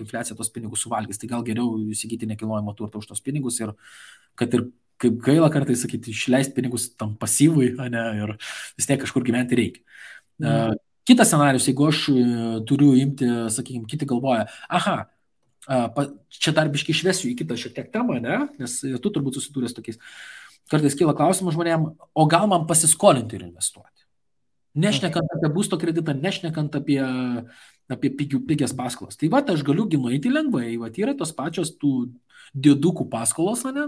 infliacija tos pinigus suvalgys. Tai gal geriau įsigyti nekilnojamo turto už tos pinigus ir kad ir kaip gaila kartais sakyti, išleisti pinigus tam pasyvui, ne, ir vis tiek kažkur gyventi reikia. Kitas scenarius, jeigu aš turiu imti, sakykime, kiti galvoja, čia dar biškai išvesiu į kitą šiek tiek temą, ne, nes tu turbūt susidūręs tokiais. Kartais kyla klausimas žmonėm, o gal man pasiskolinti ir investuoti? Nešnekant apie būsto kreditą, nešnekant apie pigias paskolas. Tai va, aš galiu nueiti lengvai, va, yra tos pačios tų didukų paskolos, ne?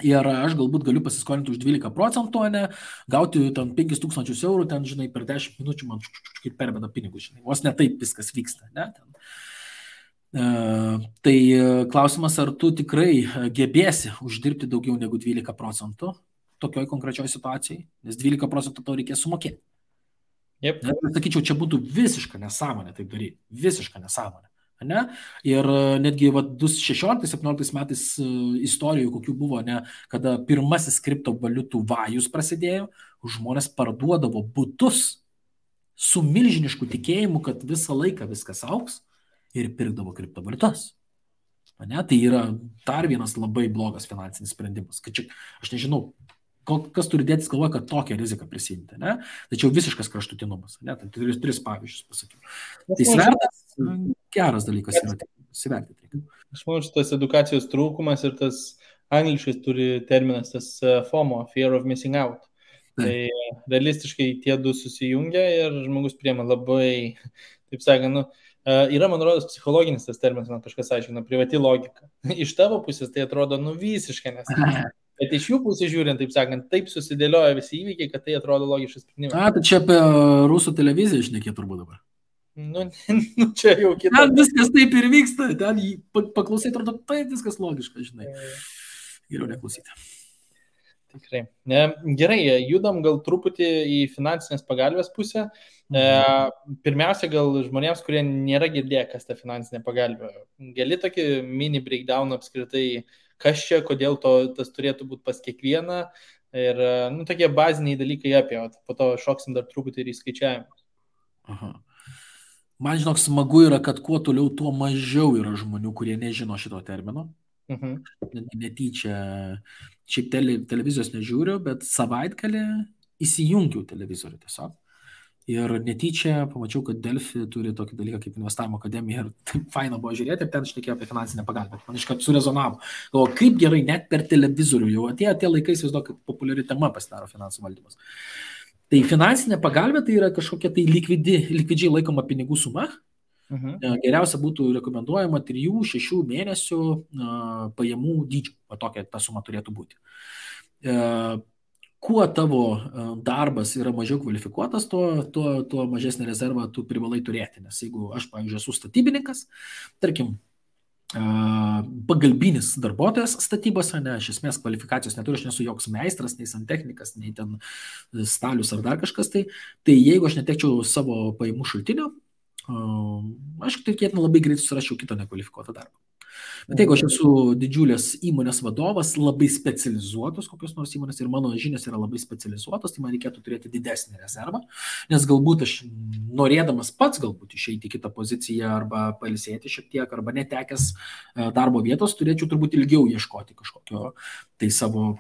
Ir aš galbūt galiu pasiskolinti už 12%, ne, gauti ten 5 000 eurų, ten, žinai, per 10 minučių man kaip perbėda pinigus, žinai, vos ne taip viskas vyksta, ne, ten. Tai klausimas, ar tu tikrai gebėsi uždirbti daugiau negu 12% tokioj konkrečioj situacijai, nes 12% tau reikės sumokėti. Yep. Sakyčiau, čia būtų visiška nesąmonė taip daryti, visiška nesąmonė. Ne? Ir netgi 2016-2017 metais istorijų, kokių buvo, ne, kada pirmasis kriptovaliutų vajus prasidėjo, žmonės parduodavo butus su milžinišku tikėjimu, kad visą laiką viskas augs ir pirkdavo kriptovaliutas. Ne? Tai yra dar vienas labai blogas finansinis sprendimas. Kad čia, aš nežinau, kas turi dėtis galvoje, kad tokią riziką prisimti. Ne? Tačiau visiškas kraštutinumas. Ne? Tai tris pavyzdžius pasakiau. Tai svertas geras dalykas yra įsivertinti. Aš manau, šitas edukacijos trūkumas ir tas angliškai turi terminas, tas FOMO, Fear of Missing Out. Tai realistiškai tie du susijungia ir žmogus priema labai, taip sakant, yra, man rodos, psichologinis tas terminas, man kažkas aiškina, privati logika. Iš tavo pusės tai atrodo visiškai nesąmonė. Bet iš jų pusės žiūrint, taip sakant, taip susidėlioja visi įvykiai, kad tai atrodo logiškas sprendimas. Tai čia apie rusų televiziją šnekėt turbūt dabar. Čia jau kita. Ten viskas taip ir vyksta, ten paklausai, atrodo, taip viskas logiška, žinai. Geriau neklausyti. Tikrai. Gerai, judam gal truputį į finansinės pagalbės pusę. Pirmiausia, gal žmonėms, kurie nėra girdėję, kas ta finansinė pagalbė. Gali tokį mini breakdown apskritai, kas čia, kodėl tas turėtų būti pas kiekvieną ir tokie baziniai dalykai apie, po to šoksim dar truputį ir į skaičiavimus. Aha. Man, žinok, smagu yra, kad kuo toliau, tuo mažiau yra žmonių, kurie nežino šito termino. Netyčia, šiaip televizijos nežiūriu, bet savaitgalį įsijungiau televizorių tiesiog. Ir netyčia pamačiau, kad Delfi turi tokį dalyką kaip investavimo akademija ir taip faina buvo žiūrėti ir ten šnekėjo apie finansinę pagalbą. Man iškart surezonavo. Galvoju, kaip gerai, net per televizorių jau atėjo laikai, įsivaizduoju, kaip populiari tema pasidaro finansų valdymas. Tai finansinė pagalbė tai yra kažkokia tai likvidžiai laikoma pinigų suma. Geriausia būtų rekomenduojama 3-6 mėnesių pajamų dydžio. Tokia ta suma turėtų būti. Kuo tavo darbas yra mažiau kvalifikuotas, tuo mažesnį rezervą tu privalai turėti. Nes jeigu aš, pavyzdžiui, esu statybininkas, tarkim, pagalbinis darbuotojas statybose, ne, iš esmės kvalifikacijos neturiu, aš nesu joks meistras, nei santechnikas, nei ten stalius ar dar kažkas, tai jeigu aš netekčiau savo pajamų šaltinio, aš tikėtina labai greit susirašiau kitą nekvalifikuotą darbą. Bet jeigu aš esu didžiulės įmonės vadovas, labai specializuotos kokios nors įmonės ir mano žinios yra labai specializuotos, tai man reikėtų turėti didesnį rezervą, nes galbūt aš norėdamas pats galbūt išeiti į kitą poziciją arba pailsėti šiek tiek, arba netekęs darbo vietos, turėčiau turbūt ilgiau ieškoti kažkokio tai savo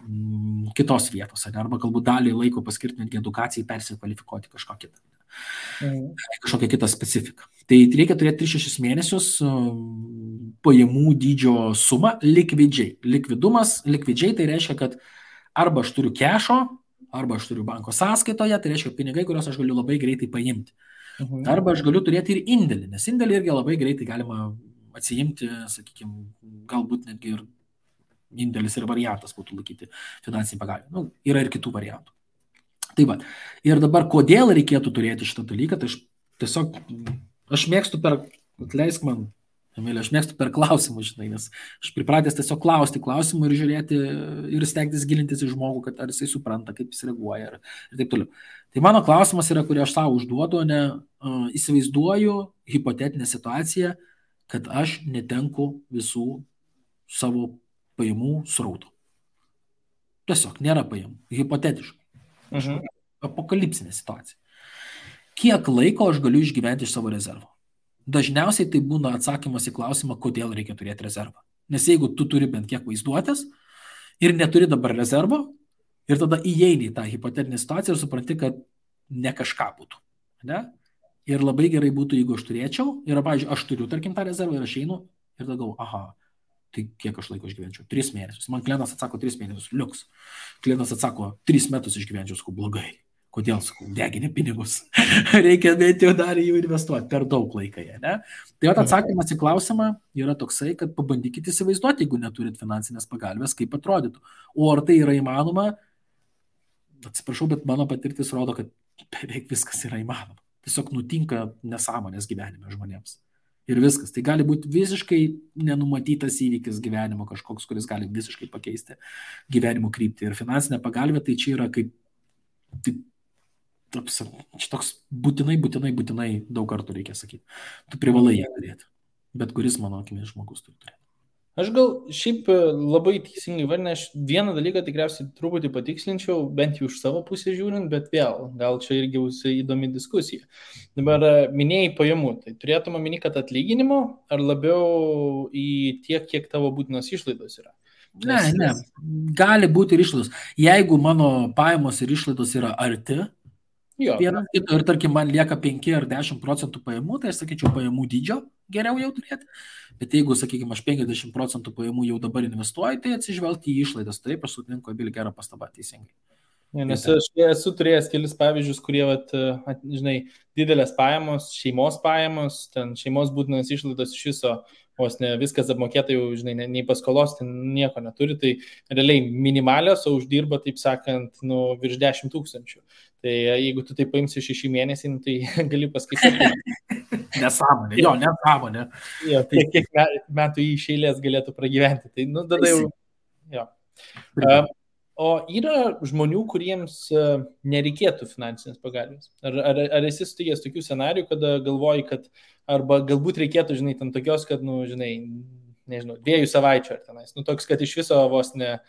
kitos vietos, arba galbūt dalį laiko paskirti netgi edukacijai, persikvalifikuoti kažką kitą. Kažkokią kitą specifiką. Tai reikia turėti 3-6 mėnesius pajamų dydžio sumą likvidžiai. Likvidžiai tai reiškia, kad arba aš turiu kešo, arba aš turiu banko sąskaitoje, tai reiškia pinigai, kuriuos aš galiu labai greitai paimti. Arba aš galiu turėti ir indėlį, nes indėlį irgi labai greitai galima atsiimti, sakykime, galbūt netgi ir indėlis ir variantas būtų laikyti finansinį pagalbą. Yra ir kitų variantų. Tai va. Ir dabar, kodėl reikėtų turėti šitą dalyką, tai aš mėgstu atleisk man, Emilė, aš mėgstu per klausimus, žinai, nes aš pripratęs tiesiog klausti klausimų ir žiūrėti ir stengtis gilintis į žmogų, kad ar jisai supranta, kaip jis reaguoja ir taip toliau. Tai mano klausimas yra, kurį aš savo užduodu, įsivaizduoju hipotetinę situaciją, kad aš netenku visų savo pajamų srautų. Tiesiog nėra pajamų, hipotetiškai. Apokalipsinė situacija. Kiek laiko aš galiu išgyventi iš savo rezervo? Dažniausiai tai būna atsakymas į klausimą, kodėl reikia turėti rezervą. Nes jeigu tu turi bent kiek vaizduotės ir neturi dabar rezervo, ir tada įeini į tą hipotetinę situaciją ir supranti, kad ne kažką būtų. Ne? Ir labai gerai būtų, jeigu aš turėčiau, ir, pavyzdžiui, aš turiu, tarkim, tą rezervą ir aš einu ir tada galvoju, aha, tai kiek aš laiko išgyvenčiau? 3 mėnesius. Man klientas atsako 3 mėnesius, liuks. Klientas atsako 3 metus išgyvenčiau, sakau, blogai. Kodėl, sakau, degini pinigus. Reikia bent jau dar jų investuoti, per daug laiką jie, ne? Tai atsakymas į klausimą yra toksai, kad pabandykite įsivaizduoti, jeigu neturit finansinės pagalbės, kaip atrodytų. O ar tai yra įmanoma? Atsiprašau, bet mano patirtis rodo, kad beveik viskas yra įmanoma. Tiesiog nutinka nesąmonės gyvenime žmonėms. Ir viskas. Tai gali būti visiškai nenumatytas įvykis gyvenimo kažkoks, kuris gali visiškai pakeisti gyvenimo kryptį. Ir finansinė pagalbė tai čia yra kaip toks būtinai daug kartų reikia sakyti. Tu privalai ją turėti. Bet kuris, mano akimis, žmogus turi turėti. Aš gal šiaip labai teisingai vardinę, aš vieną dalyką tikriausiai truputį patikslinčiau, bent jau iš savo pusės žiūrint, bet vėl, gal čia irgi bus įdomi diskusija. Dabar minėjai pajamų, tai turėtum omeny, kad atlyginimo ar labiau į tiek, kiek tavo būtinos išlaidos yra? Ne, gali būti ir išlaidos. Jeigu mano pajamos ir išlaidos yra arti, vienas kito ir tarkim man lieka 5 ar 10% pajamų, tai aš sakyčiau pajamų dydžio geriau jau turėti. Bet jeigu, sakykime, aš 50% pajamų jau dabar investuoju, tai atsižvelgti į išlaidas. Taip, aš sutinku, Abili, gerą pastabą teisingai. Nes aš esu turėjęs kelis pavyzdžius, kurie, žinai, didelės pajamos, šeimos pajamos, ten šeimos būtinos išlaidos iš viso, vos ne viskas apmokėta jau, žinai, nei paskolos, ten nieko neturi, tai realiai minimalios, o uždirba, taip sakant, virš 10 000. Tai jeigu tu tai paimsi 6 mėnesį, tai gali paskaityti. Nesąmonė, nesąmonė. Jo, tai kiek metų iš eilės galėtų pragyventi. Tai, tada jau. Jo. O yra žmonių, kuriems nereikėtų finansinės pagalbės? Ar esi sutikęs tokių scenarijų, kada galvoji, kad arba galbūt reikėtų, žinai, ten tokios, kad, žinai, nežinau, 2 savaičių ar tenais, toks, kad iš viso vos ne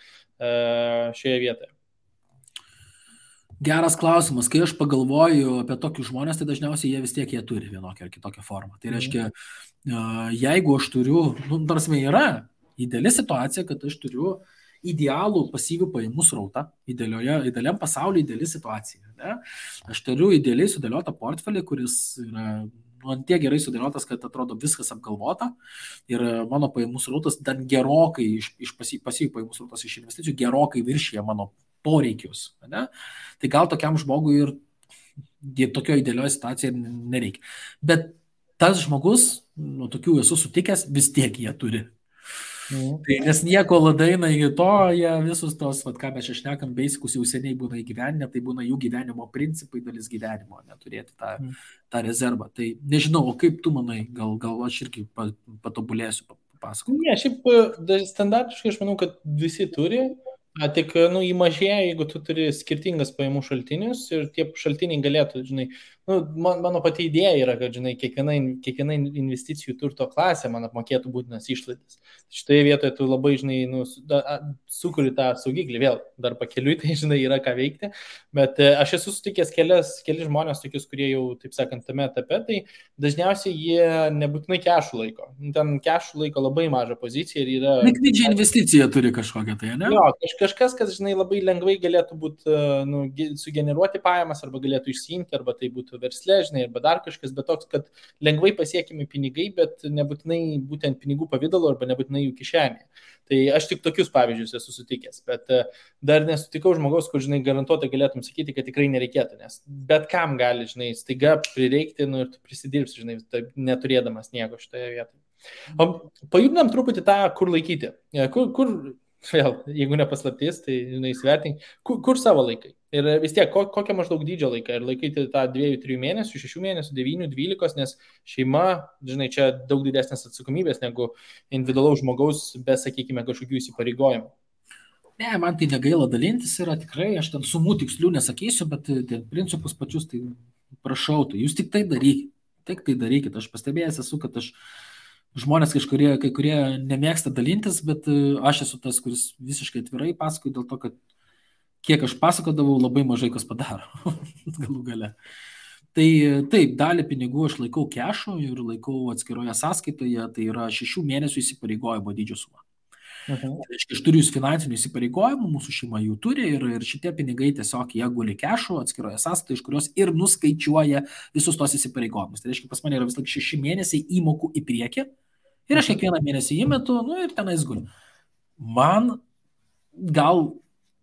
šioje vietoje? Geras klausimas. Kai aš pagalvoju apie tokius žmonės, tai dažniausiai jie vis tiek jie turi vienokią ar kitokią formą. Tai reiškia, jeigu aš turiu, tarsi yra ideali situacija, kad aš turiu idealų pasyvių pajamų srautą, idealiam pasaulyje ideali situacija. Ne? Aš turiu idealiai sudėliotą portfelį, kuris yra tiek gerai sudėliotas, kad atrodo viskas apgalvota ir mano pajamų srautas dar gerokai iš pasyvių pajamų srautas iš investicijų gerokai viršyje mano poreikius. Ne? Tai gal tokiam žmogui ir tokio idealioje situacijoje nereikia. Bet tas žmogus, tokių esu sutikęs, vis tiek jie turi. Tai nes nieko ladaina iki to, jie visus tos, ką mes čia šnekam, beisikus jau seniai būna įgyvenę, tai būna jų gyvenimo principai, dalis gyvenimo, neturėti tą rezervą. Tai nežinau, o kaip tu manai, gal aš irgi patobulėsiu, pasakok. Ne, šiaip standartiškai aš manau, kad visi turi, tik jį mažėja, jeigu tu turi skirtingas pajamų šaltinius ir tie šaltiniai galėtų, žinai, mano pati idėja yra, kad, žinai, kiekviena investicijų turto klasė man apmokėtų būtinas išlaidas. Šitoje vietoje tu labai, žinai, sukuri tą saugiklį, vėl dar pakeliui, tai, žinai, yra ką veikti, bet aš esu sutikęs keli žmonės tokius, kurie jau, taip sakant, tame etape, tai dažniausiai jie nebūtinai kešų laiko. Ten kešų laiko labai mažą poziciją ir yra... Likvidžią investiciją turi kažkokią, tai, ne? Jo, kažkas, kas, žinai, labai lengvai galėtų būti, sugeneruoti pajamas, arba galėtų išsiimti, arba tai būtų verslė, žinai, arba dar kažkas, bet toks, kad lengvai pasiekimi pinigai, bet nebūtinai būtent pinigų pavidalo, arba nebūtinai jų kišenė. Tai aš tik tokius pavyzdžius esu sutikęs, bet dar nesutikau žmogaus, kur, žinai, garantuotai galėtum sakyti, kad tikrai nereikėtų, nes bet kam gali, žinai, staiga prireikti, ir tu prisidirbsi, žinai, neturėdamas nieko šitoje vietoje. O pajudinam truputį tą, kur laikyti. Kur vėl, jeigu nepaslaptis, tai, žinai, įsivertink, kur savo laikai. Ir vis tiek, kokią maždaug dydžio laiką. Ir laikyti tą 2-3 mėnesių, 6 mėnesių, 9-12, nes šeima, žinai, čia daug didesnės atsakomybės negu individualaus žmogaus, be, sakykime, kažkokių įsipareigojimų. Ne, man tai negaila dalintis yra tikrai, aš ten sumų tikslių nesakysiu, bet principus pačius, tai prašau, tai jūs tik tai darykit. Aš pastebėjęs esu, kad žmonės kai kurie nemėgsta dalintis, bet aš esu tas, kuris visiškai atvirai pasakoju dėl to, kad kiek aš pasakodavau, labai mažai kas padaro galų gale. Tai taip, dalį pinigų aš laikau kešu ir laikau atskiroje sąskaitoje, tai yra 6 mėnesių įsipareigojimo dydžio suma. Aš turiu finansinių įsipareigojimų, mūsų šeima jų turi ir šitie pinigai tiesiog jie guli kešu atskiroje sąskaitoje, iš kurios ir nuskaičiuoja visus tos įsipareigojimus. Tai reiškia, pas mane yra vis laik 6 mėnesiai įmokų į priekį ir aš kiekvieną mėnesį įmetu, ir tenais guli. Man gal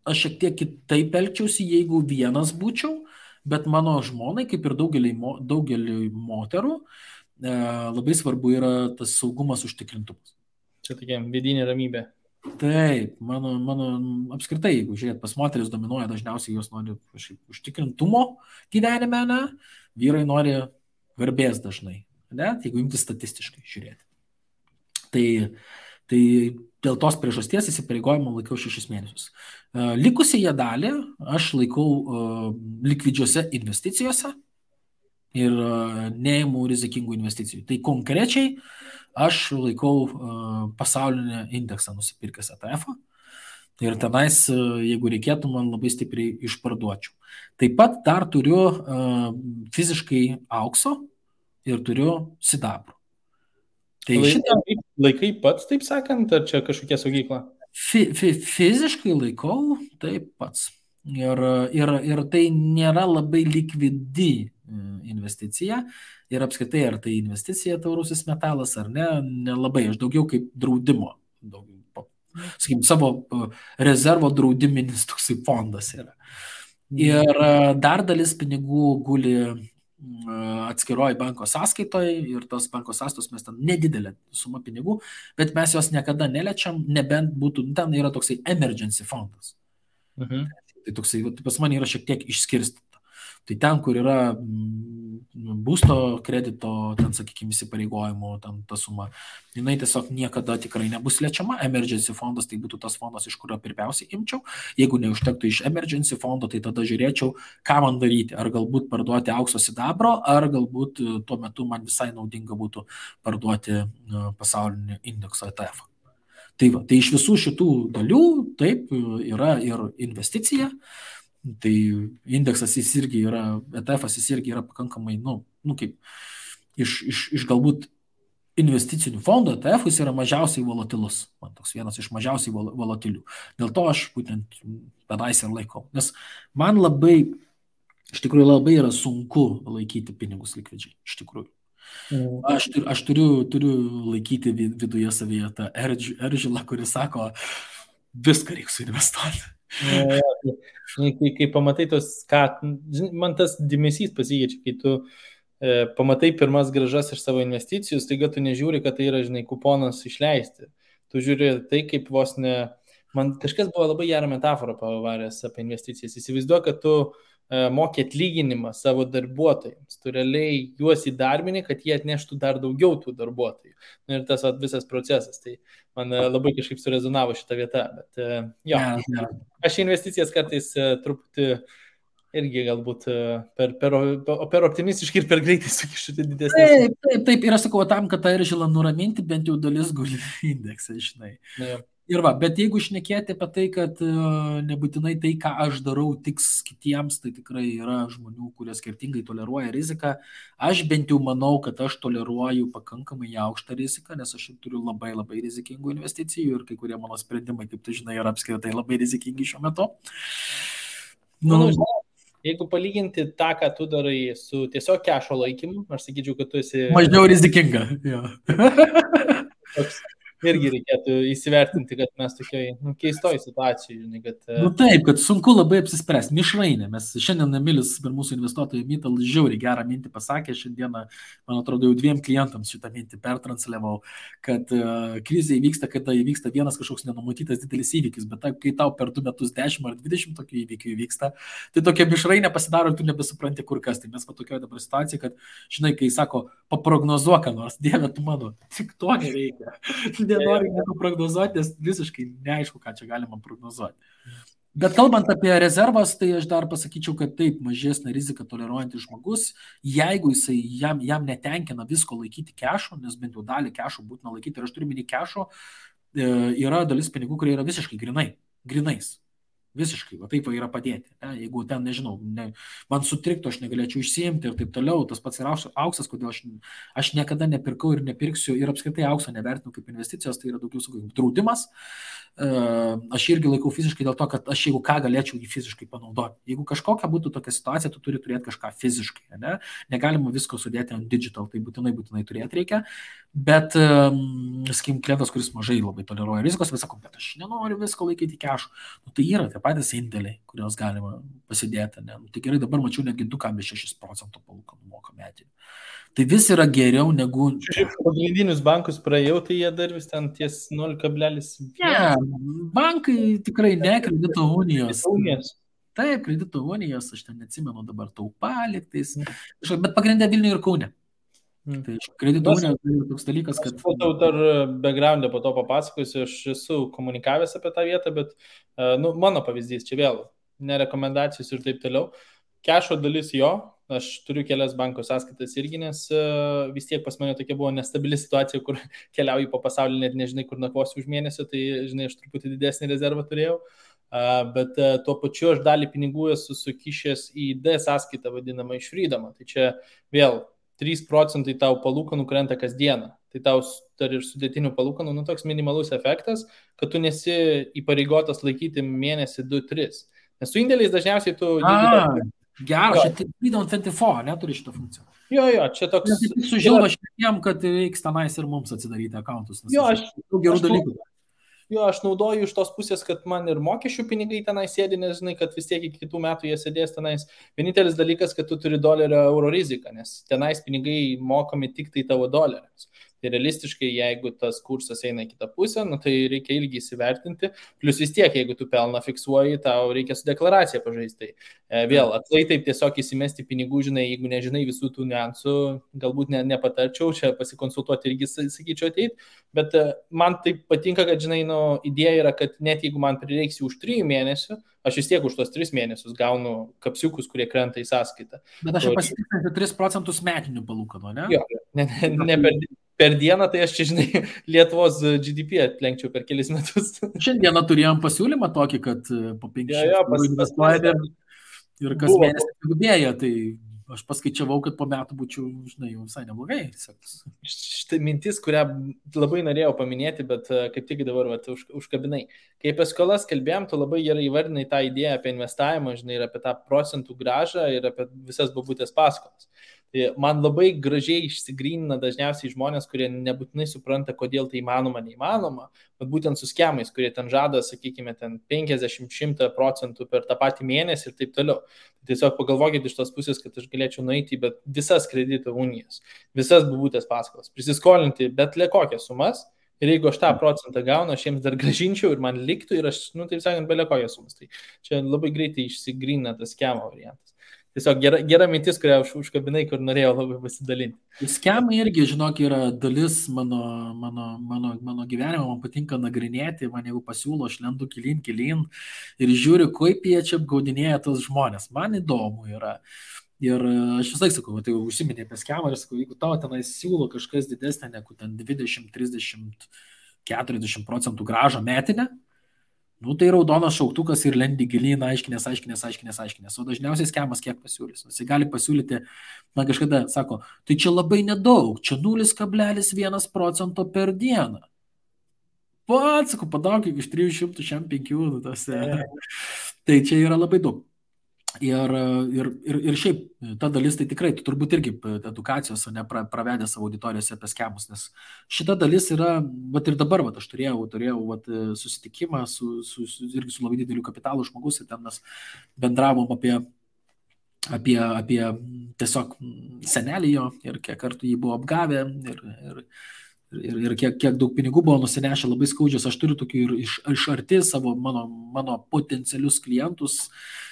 aš šiek tiek kitaip elgčiausi, jeigu vienas būčiau, bet mano žmonai, kaip ir daugeliui moterų, labai svarbu yra tas saugumas, užtikrintumas. Čia tokia vidinė ramybė. Taip, mano apskritai, jeigu žiūrėt, pas moteris dominuoja, dažniausiai jos nori užtikrintumo gyvenime, ne? Vyrai nori garbės dažnai, ne? Jeigu imti statistiškai žiūrėti. Tai dėl tos priežasties įsipareigojimą laikau 6 mėnesius. Likusiąją dalį aš laikau likvidžiuose investicijose ir neimu rizikingų investicijų. Tai konkrečiai aš laikau pasaulinį indeksą nusipirkęs ETF-ą ir tenais, jeigu reikėtų, man labai stipriai išparduočiau. Taip pat dar turiu fiziškai aukso ir turiu sidabro. Tai laikai pats, taip sakant, ar čia kažkokia saugykla? Fiziškai laikau taip pats. Ir tai nėra labai likvidi investicija. Ir apskritai, ar tai investicija taurusis metalas ar ne, nelabai. Aš daugiau kaip draudimo. Sakykim, savo rezervo draudiminis toksai fondas yra. Ir dar dalis pinigų guli atskiroji banko sąskaitoje ir tos banko sąskaitos mes ten nedidelė suma pinigų, bet mes jos niekada neliečiam, nebent būtų, ten yra toksai emergency fondas. Tai toksai, pas mane yra šiek tiek išskirstyta. Tai ten, kur yra būsto kredito, ten, sakykime, įsipareigojimo, ten ta suma, jinai tiesiog niekada tikrai nebus liečiama. Emergency fondas tai būtų tas fondas, iš kurio pirmiausiai imčiau. Jeigu neužtektų iš emergency fondo, tai tada žiūrėčiau, ką man daryti. Ar galbūt parduoti aukso sidabro, ar galbūt tuo metu man visai naudinga būtų parduoti pasaulinį indekso ETF. Tai iš visų šitų dalių, taip, yra ir investicija. Tai indeksas jis irgi yra, ETF-as jis irgi yra pakankamai, kaip iš galbūt investicinių fondų ETF jis yra mažiausiai volatilus. Man toks vienas iš mažiausiai volatilių. Dėl to aš būtent pedais ir laikau. Nes man iš tikrųjų labai yra sunku laikyti pinigus likvidžiai. Iš tikrųjų. Aš turiu laikyti viduje savyje tą eržilą, kuris sako, viską reikia suinvestuoti. Kai pamatai man tas dėmesys pasikeičia, kai tu pamatai pirmas grąžas iš savo investicijų, staiga tu nežiūri, kad tai yra, žinai, kuponas išleisti. Tu žiūri tai, kaip man kažkas buvo labai gerą metaforą pavaręs apie investicijas. Įsivaizduoju, kad tu mokė atlyginimą savo darbuotojams. Tu realiai juos įdarbini, kad jie atneštų dar daugiau tų darbuotojų. Ir tas visas procesas. Tai man labai kažkaip surezonavo šitą vietą. Bet jo, aš investicijas kartais truputį irgi galbūt per optimistiškai ir per greitai sukišu didesnį. Taip, ir aš sakau, tam, kad tą Eržilą nuraminti, bent jau dalis guli indeksą, žinai. Ja. Ir bet jeigu šnekėti apie tai, kad nebūtinai tai, ką aš darau, tiks kitiems, tai tikrai yra žmonių, kurie skirtingai toleruoja riziką. Aš bent jau manau, kad aš toleruoju pakankamai aukštą riziką, nes aš turiu labai labai rizikingų investicijų ir kai kurie mano sprendimai, kaip tu žinai, yra apskritai labai rizikingi šiuo metu. Jeigu palyginti tą, ką tu darai su tiesiog kešo laikymu, aš sakyčiau, kad tu esi... Mažiau rizikinga, jo. Irgi reikėtų įsivertinti, kad mes tokioj keistoj situacijoje. Kad... Taip, kad sunku labai apsispręsti. Mišrainė. Mes šiandien Emilis per mūsų investuotojų mytą žiauriai gerą mintį pasakė. Šiandieną, man atrodo, jau 2 klientams šitą mintį pertransliavau, kad krizė įvyksta, kada įvyksta vienas kažkoks nenumatytas didelis įvykis, bet kai tau per 2 metus 10 ar 20 tokių įvykių įvyksta, tai tokia mišrainė pasidaro ir tu nebesupranti kur kas. Tai mes tokioje dabar situacijoje, kad, žinai, kai sako, paprognozuok, nors Dieve, tu mano, tik to nereikia. Nenoriu nieko prognozuoti, nes visiškai neaišku, ką čia galima prognozuoti. Bet kalbant apie rezervas, tai aš dar pasakyčiau, kad taip, mažesnė rizika toleruojantis žmogus, jeigu jam netenkina visko laikyti kešo, nes bent jau dalį kešo būtina laikyti, ir aš turiu minį kešo, yra dalis pinigų, kurie yra visiškai grinais. Visiškai, va taip yra padėti. Jeigu ten, nežinau, man sutriktų, aš negalėčiau išsiimti ir taip toliau, tas pats yra auksas, kodėl aš niekada nepirkau ir nepirksiu ir apskritai aukso nevertinu kaip investicijos, tai yra daugiau kaip draudimas. Aš irgi laikau fiziškai dėl to, kad aš jeigu ką galėčiau jį fiziškai panaudoti. Jeigu kažkokia būtų tokia situacija, tu turi turėti kažką fiziškai. Ne? Negalima visko sudėti ant digital, tai būtinai turėti reikia. Bet, sakykim, klientas, kuris mažai labai toleruoja rizikos, vis sako, bet aš nenoriu visko laikyti kešu. Tai yra tie patys indėliai, kuriuos galima pasidėti. Ne? Tai gerai, dabar mačiau netgi 2,6% palūkanų moka metinių. Tai vis yra geriau negu... Pagrindinius bankus praėjau, tai jie dar vis ten ties 0,1. Ne, bankai tikrai ne, kredito unijos. Taip, kredito unijos, aš ten neatsimenu dabar Taupaliktais, bet pagrindė Vilniuje ir Kaune. Tai kredito unija tai toks dalykas, kad... Tau dar backgroundą po to papasakosiu, aš esu komunikavęs apie tą vietą, bet mano pavyzdys čia vėl, nerekomendacijos ir taip toliau. Kešo dalis jo, aš turiu kelias banko sąskaitas irgi, nes vis tiek pas mane tokia buvo nestabili situacija, kur keliauju po pasaulį, net nežinai, kur nakvosiu už mėnesio, tai žinai, aš truputį didesnį rezervą turėjau, bet tuo pačiu aš dalį pinigų esu sukišęs į D sąskaitą vadinamą iš Freedomą. Tai čia vėl 3% tau palūkanų krenta kasdieną. Tai tau dar ir sudėtinių palūkanų, toks minimalus efektas, kad tu nesi įpareigotas laikyti mėnesį 2-3. Nes su indėliais dažniausiai tu... Geras, čia Freedom 24, neturi šitą funkciją. Jo, čia toks... Tik sužilva šiandien, kad reiks tenais ir mums atsidaryti akauntus. Jo, aš gerų dalykų. Jo, aš naudoju iš tos pusės, kad man ir mokesčių pinigai tenai sėdi, nes žinai, kad vis tiek iki kitų metų jie sėdės tenais. Vienintelis dalykas, kad tu turi dolerio euro riziką, nes tenais pinigai mokami tik tai tavo doleriams. Tai realistiškai, jeigu tas kursas eina į kitą pusę, tai reikia ilgi įsivertinti. Plus vis tiek, jeigu tu pelną fiksuoji, tau reikia su deklaracija pažaisti. Vėl, aklai taip tiesiog įsimesti pinigų, žinai, jeigu nežinai visų tų niuansų, galbūt nepatarčiau, čia pasikonsultuoti irgi, sakyčiau, ateit. Bet man taip patinka, kad, žinai, idėja yra, kad net jeigu man prireiks už 3 mėnesių, aš vis tiek už tos 3 mėnesius gaunu kapsiukus, kurie krenta į sąskaitą. Bet aš pasitikrinti 3% metinių palūkanų, ne? Jo, ne per dieną, tai aš čia, žinai, Lietuvos GDP atlenkčiau per kelis metus. Šiandieną turėjom pasiūlymą tokį, kad po 500 investuojame ir kas mėnesį didėja, tai aš paskaičiavau, kad po metų būčiau, žinai, jau visai neblogai. Štai mintis, kurią labai norėjau paminėti, bet kaip tik dabar užkabinai. Kai apie skolas kalbėjom, tu labai gerai įvardinai tą idėją apie investavimą, žinai, ir apie tą procentų grąžą ir apie visas bobutės paskolas. Tai man labai gražiai išsigrynina dažniausiai žmonės, kurie nebūtinai supranta, kodėl tai įmanoma, neįmanoma, bet būtent su skemais, kurie ten žada, sakykime, ten 50-100% per tą patį mėnesį ir taip toliau. Tiesiog pagalvokit iš tos pusės, kad aš galėčiau nueiti į visas kredito unijas, visas bobutės paskolas, prisiskolinti bet kokias sumas. Ir jeigu aš tą procentą gaunu, aš jiems dar gražinčiau ir man liktų ir aš, taip sakant, bele kokias sumas. Tai čia labai greitai išsigrynina tas skemo variantas. tiesiog gera mintis, kurią užkabinai, kur norėjau labai pasidalinti. Skemai irgi, žinok, yra dalis mano gyvenimo, man patinka nagrinėti, man jeigu pasiūlo, aš lendu gilyn ir žiūriu, kaip jie čia apgaudinėja tos žmonės. Man įdomu yra. Ir aš visai sakau, tai užsiminė apie skemą ir sakau, jeigu tau tenai siūlo kažkas didesnė negu ten 20, 30, 40% gražą metinę, nu tai raudonas šauktukas ir lendi gilyn, aiškinės. O dažniausiai skemas kiek pasiūlys. Jis gali pasiūlyti, man kažkada sako, tai čia labai nedaug, čia 0,1% per dieną. Pats, sakau, padaug iš 300 šiam 5. Tai čia yra labai daug. Ir šiaip ta dalis, tai tikrai, tu turbūt irgi edukacijos pravedė savo auditorijose apie skemus, nes šita dalis yra, vat ir dabar, vat aš turėjau vat, susitikimą irgi su labai dideliu kapitalu žmogus ir ten mes bendravom apie tiesiog senelį jo ir kiek kartų jį buvo apgavę ir kiek daug pinigų buvo nusinešę labai skaudžios. Aš turiu tokių ir iš arti savo mano potencialius klientus,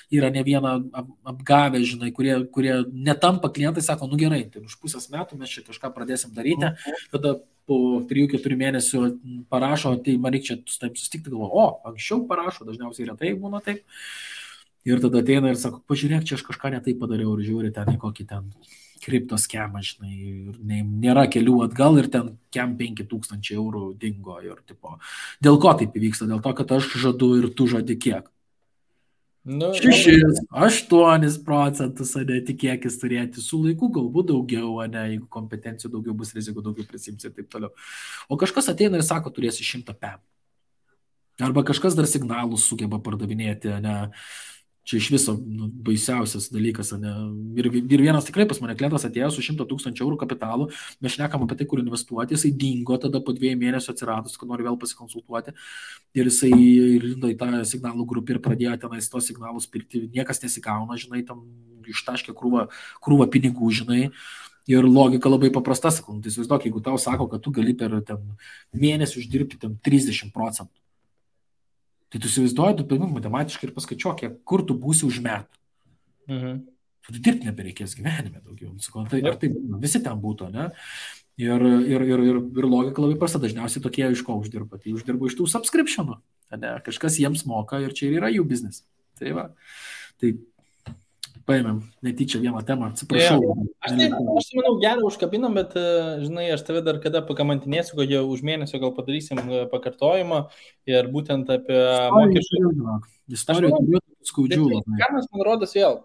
yra ne vieną apgavę, žinai, kurie netampa klientai, sako, nu gerai, tai už pusės metų mes čia kažką pradėsim daryti, tada po 3-4 mėnesių parašo, tai man reikia čia su taip susitikti, galvoju, anksčiau parašo, dažniausiai retai būna taip, ir tada ateina ir sako, pažiūrėk, čia aš kažką netai padariau ir žiūri ten į kokį ten kriptos skemą, žinai, ir nėra kelių atgal ir ten 5,000 eurų dingo ir tipo, dėl ko taip įvyksta, dėl to, kad aš žadu ir tu žadi kiek. 6-8%, ane, tikėkis turėti, su laiku galbūt daugiau, ane, jeigu kompetencijų daugiau bus, rizikų daugiau prisims ir taip toliau. O kažkas ateina ir sako, turėsi 100 PM. Arba kažkas dar signalus sugeba pardavinėti, ane, čia iš viso baisiausias dalykas, ane. Ir vienas tikrai pas mane klientas atėjo su 100,000 eurų kapitalu, mes šnekam apie tai, kur investuoti, jisai dingo tada po 2 mėnesių atsiradus, kad nori vėl pasikonsultuoti ir jisai lindo į tą signalų grupę ir pradėjo tenais tos signalus pirkti, niekas nesigauna, žinai, tam ištaškė krūvą pinigų, žinai. Ir logika labai paprasta, sakau, tai įsivaizduok, jeigu tau sako, kad tu gali per mėnesį uždirbti 30%. Tai tu įsivaizduoji, tu paimk matematiškai ir paskaičiuok, kur tu būsi už metų. Tu dirbti nebereikės gyvenime daugiau. Tai, ar tai visi ten būtų, ne? Ir logika labai prasta, dažniausiai tokie iš ko uždirba. Tai uždirba iš tų subscriptionų. Ne? Kažkas jiems moka ir čia yra jų biznis. Tai va. Tai paėmėm netyčia vieną temą, atsiprašau. Aš manau, gerą užkabinam, bet, žinai, aš tave dar kada pakamantinėsiu, kad jau už mėnesio gal padarysim pakartojimą ir būtent apie mokesčių. Istorijų turiu skaudžių. Kamas, man rodos, vėl,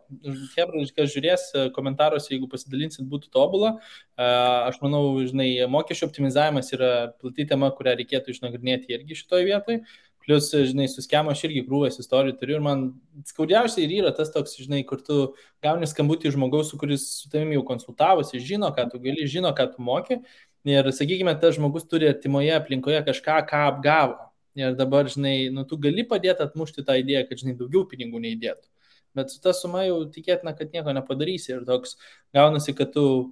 kas žiūrės komentaruose, jeigu pasidalinsit, būtų tobula. Aš manau, žinai, mokesčių optimizavimas yra plati tema, kurią reikėtų išnagrinėti irgi šitoje vietoje. Plius, žinai, su skemu aš irgi krūvas istorijų turiu ir man skaudžiausiai ir yra tas toks, žinai, kur tu gauni skambutį žmogaus, kuris su tavimi jau konsultavosi, žino, ką tu gali, žino, ką tu moki ir, sakykime, tas žmogus turi artimoje aplinkoje kažką, ką apgavo. Ir dabar, žinai, tu gali padėti atmušti tą idėją, kad, žinai, daugiau pinigų neįdėtų. Bet su ta suma jau tikėtina, kad nieko nepadarysi ir toks gaunasi, kad tu,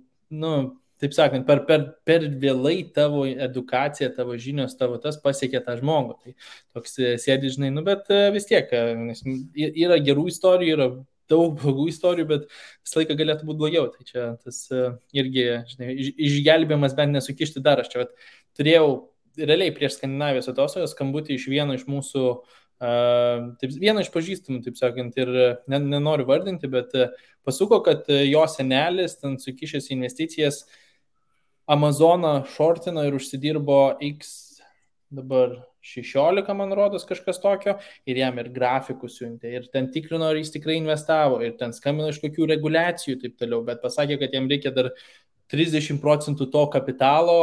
taip sakant, per vėlai tavo edukacija, tavo žinios, tavo tas pasiekė tą žmogų. Tai toks sėdi, žinai, bet vis tiek yra gerų istorijų, yra daug blogų istorijų, bet visą laiką galėtų būti blogiau. Tai čia tas irgi, žinai, išgelbėjimas bent nesukišti dar. Aš čia turėjau realiai prieš Skandinavijos atostogas skambutį iš vieno iš mūsų, vieno iš pažįstamų, taip sakant, ir nenoriu vardinti, bet pasuko, kad jo senelis ten sukišęs investicijas Amazoną shortino ir užsidirbo X dabar 16, man rodos, kažkas tokio, ir jam ir grafikus siuntė, ir ten tikrino, ar jis tikrai investavo, ir ten skambino iš kokių reguliacijų, taip toliau, bet pasakė, kad jam reikia dar 30% to kapitalo,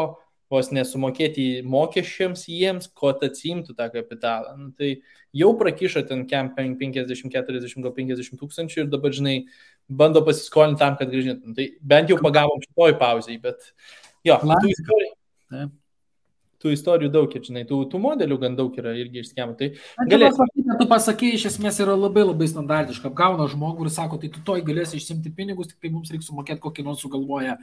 vos nesumokėti mokesčiams jiems, ko atsimtų tą kapitalą. Tai jau prakišo ten 50, 40, gal 50 tūkstančių ir dabar, žinai, bando pasiskolinti tam, kad grįžintum. Tai bent jau pagavom šitoj pauzėj, bet jo, tų istorijų. tų istorijų daug, žinai, tų modelių gan daug yra irgi iš schemų. Tai Tu pasakei, iš esmės yra labai labai standartiška. Apgauna žmogų ir sako, tai tu toj galėsi išsimti pinigus, tik tai mums reikia sumokėti kokį nors sugalvoję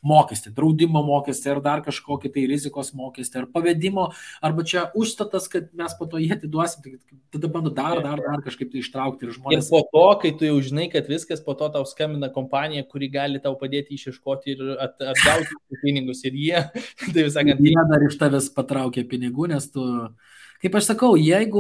mokestį, draudimo mokestį, ar dar kažkokį tai rizikos mokestį, ar pavedimo, arba čia užstatas, kad mes po to jį atiduosim, tai tada bando dar kažkaip tai ištraukti ir žmonės. Ir po to, kai tu jau žinai, kad viskas, po to tau skambina kompanija, kuri gali tau padėti išieškoti ir atgauti pinigus. Ir jie, tai visakant, jie dar iš tavęs patraukia pinigų, nes tu... Kaip aš sakau, jeigu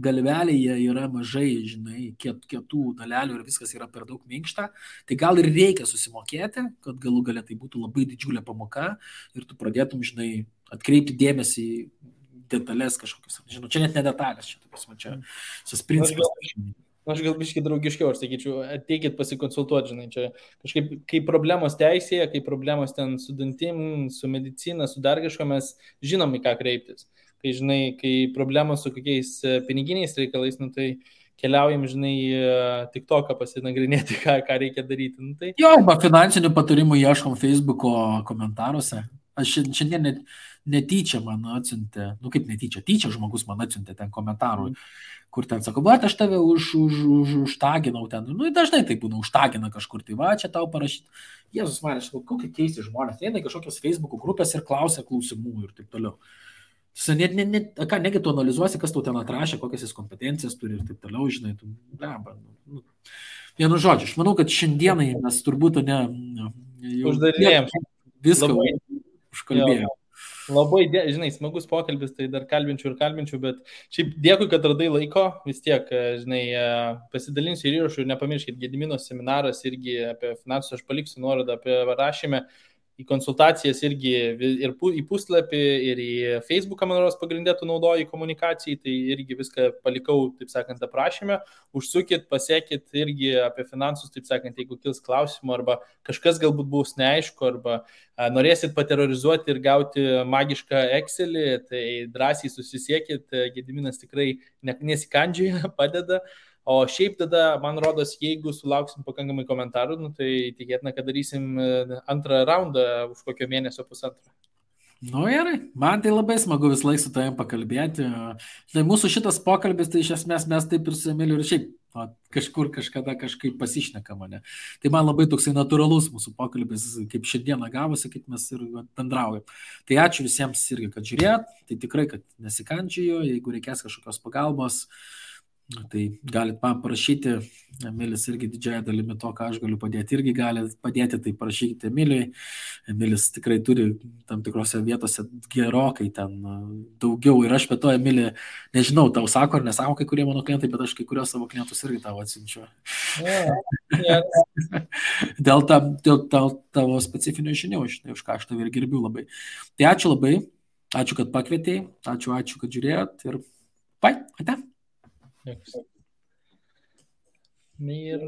galvelėje yra mažai, žinai, kietų dalelių ir viskas yra per daug minkšta, tai gal ir reikia susimokėti, kad galų galia tai būtų labai didžiulė pamoka ir tu pradėtum, žinai, atkreipti dėmesį į detalės kažkokius. Žinau, čia net ne detalės, čia visas principas. Aš gal biškai draugiškiau, aš sakyčiau, ateikit pasikonsultuoti, žinai, čia kažkaip, kai problemos teisėje, kai problemos ten su dantim, su medicina, su dar kažko, mes žinom, į ką kreiptis. Kai, žinai, kai problemos su kokiais piniginiais reikalais, nu, tai keliaujam, žinai, TikToką pasinagrinėti, ką reikia daryti. Nu, tai... Jo, arba finansinių patarimų ieškom Facebooko komentaruose. Aš šiandien netyčia man atsiuntė, nu kaip netyčia, tyčia žmogus man atsiuntė ten komentarų, kur ten sako, va, aš tave užtaginau ten, nu dažnai tai būna, užtagina kažkur, tai va, čia tau parašyti. Jėzus man, aš sakau, kokie keisti žmonės, eina kažkokios Facebook'o grupės ir klausia klausimų ir taip toliau. Negi tu analizuosi, kas tau ten atrašė, kokias jis kompetencijas turi ir taip toliau, žinai, tu, vienu žodžiu, aš manau, kad šiandienai mes turbūt uždarinėjom viską užkalbėjom. Labai, žinai, smagus pokalbis, tai dar kalbinčiau, bet šiaip dėkui, kad radai laiko, vis tiek, žinai, pasidalinsiu ir įrašų ir nepamirškit, Gedimino seminaras irgi apie finansus, aš paliksiu nuorodą apie rašymę, į konsultacijas irgi ir į puslapį, ir į Facebooką, man rodos, pagrindė tu naudoji komunikacijai, tai irgi viską palikau, taip sakant, aprašymę, užsukit, pasiekit irgi apie finansus, taip sakant, jeigu kils klausimų, arba kažkas galbūt bus neaišku, arba norėsit paterrorizuoti ir gauti magišką Excelį, tai drąsiai susisiekit, Gediminas tikrai nesikandžioja, padeda. O šiaip tada, man rodos, jeigu sulauksim pakankamai komentarų, nu, tai tikėtina, kad darysim antrą raundą už kokio mėnesio pusantro. Nu gerai, man tai labai smagu vis laik su tavim pakalbėti. Tai mūsų šitas pokalbis, tai iš esmės mes taip ir su Emiliu ir šiaip kažkur kažkada kažkaip pasišneka mane. Tai man labai toksai natūralus mūsų pokalbis, kaip šiandieną gavosi, kaip mes ir bendraujam. Tai ačiū visiems irgi, kad žiūrėt, tai tikrai, kad nesikandžioju, jeigu reikės kažkokios pagalbos, tai galit man parašyti, Emilis irgi didžiąją dalimi to, ką aš galiu padėti, irgi gali padėti, tai parašykite Emiliui. Emilis tikrai turi tam tikrose vietose gerokai ten daugiau ir aš be to, Emilį, nežinau, tau sako ar nesako kai kurie mano klientai, bet aš kai kurios savo klientus irgi tavo atsiunčiu. Dėl tavo specifinio žinių, už ką aš tavį ir gerbiu labai. Tai ačiū labai, ačiū, kad pakvietei, ačiū, kad žiūrėjot ir ate. Ir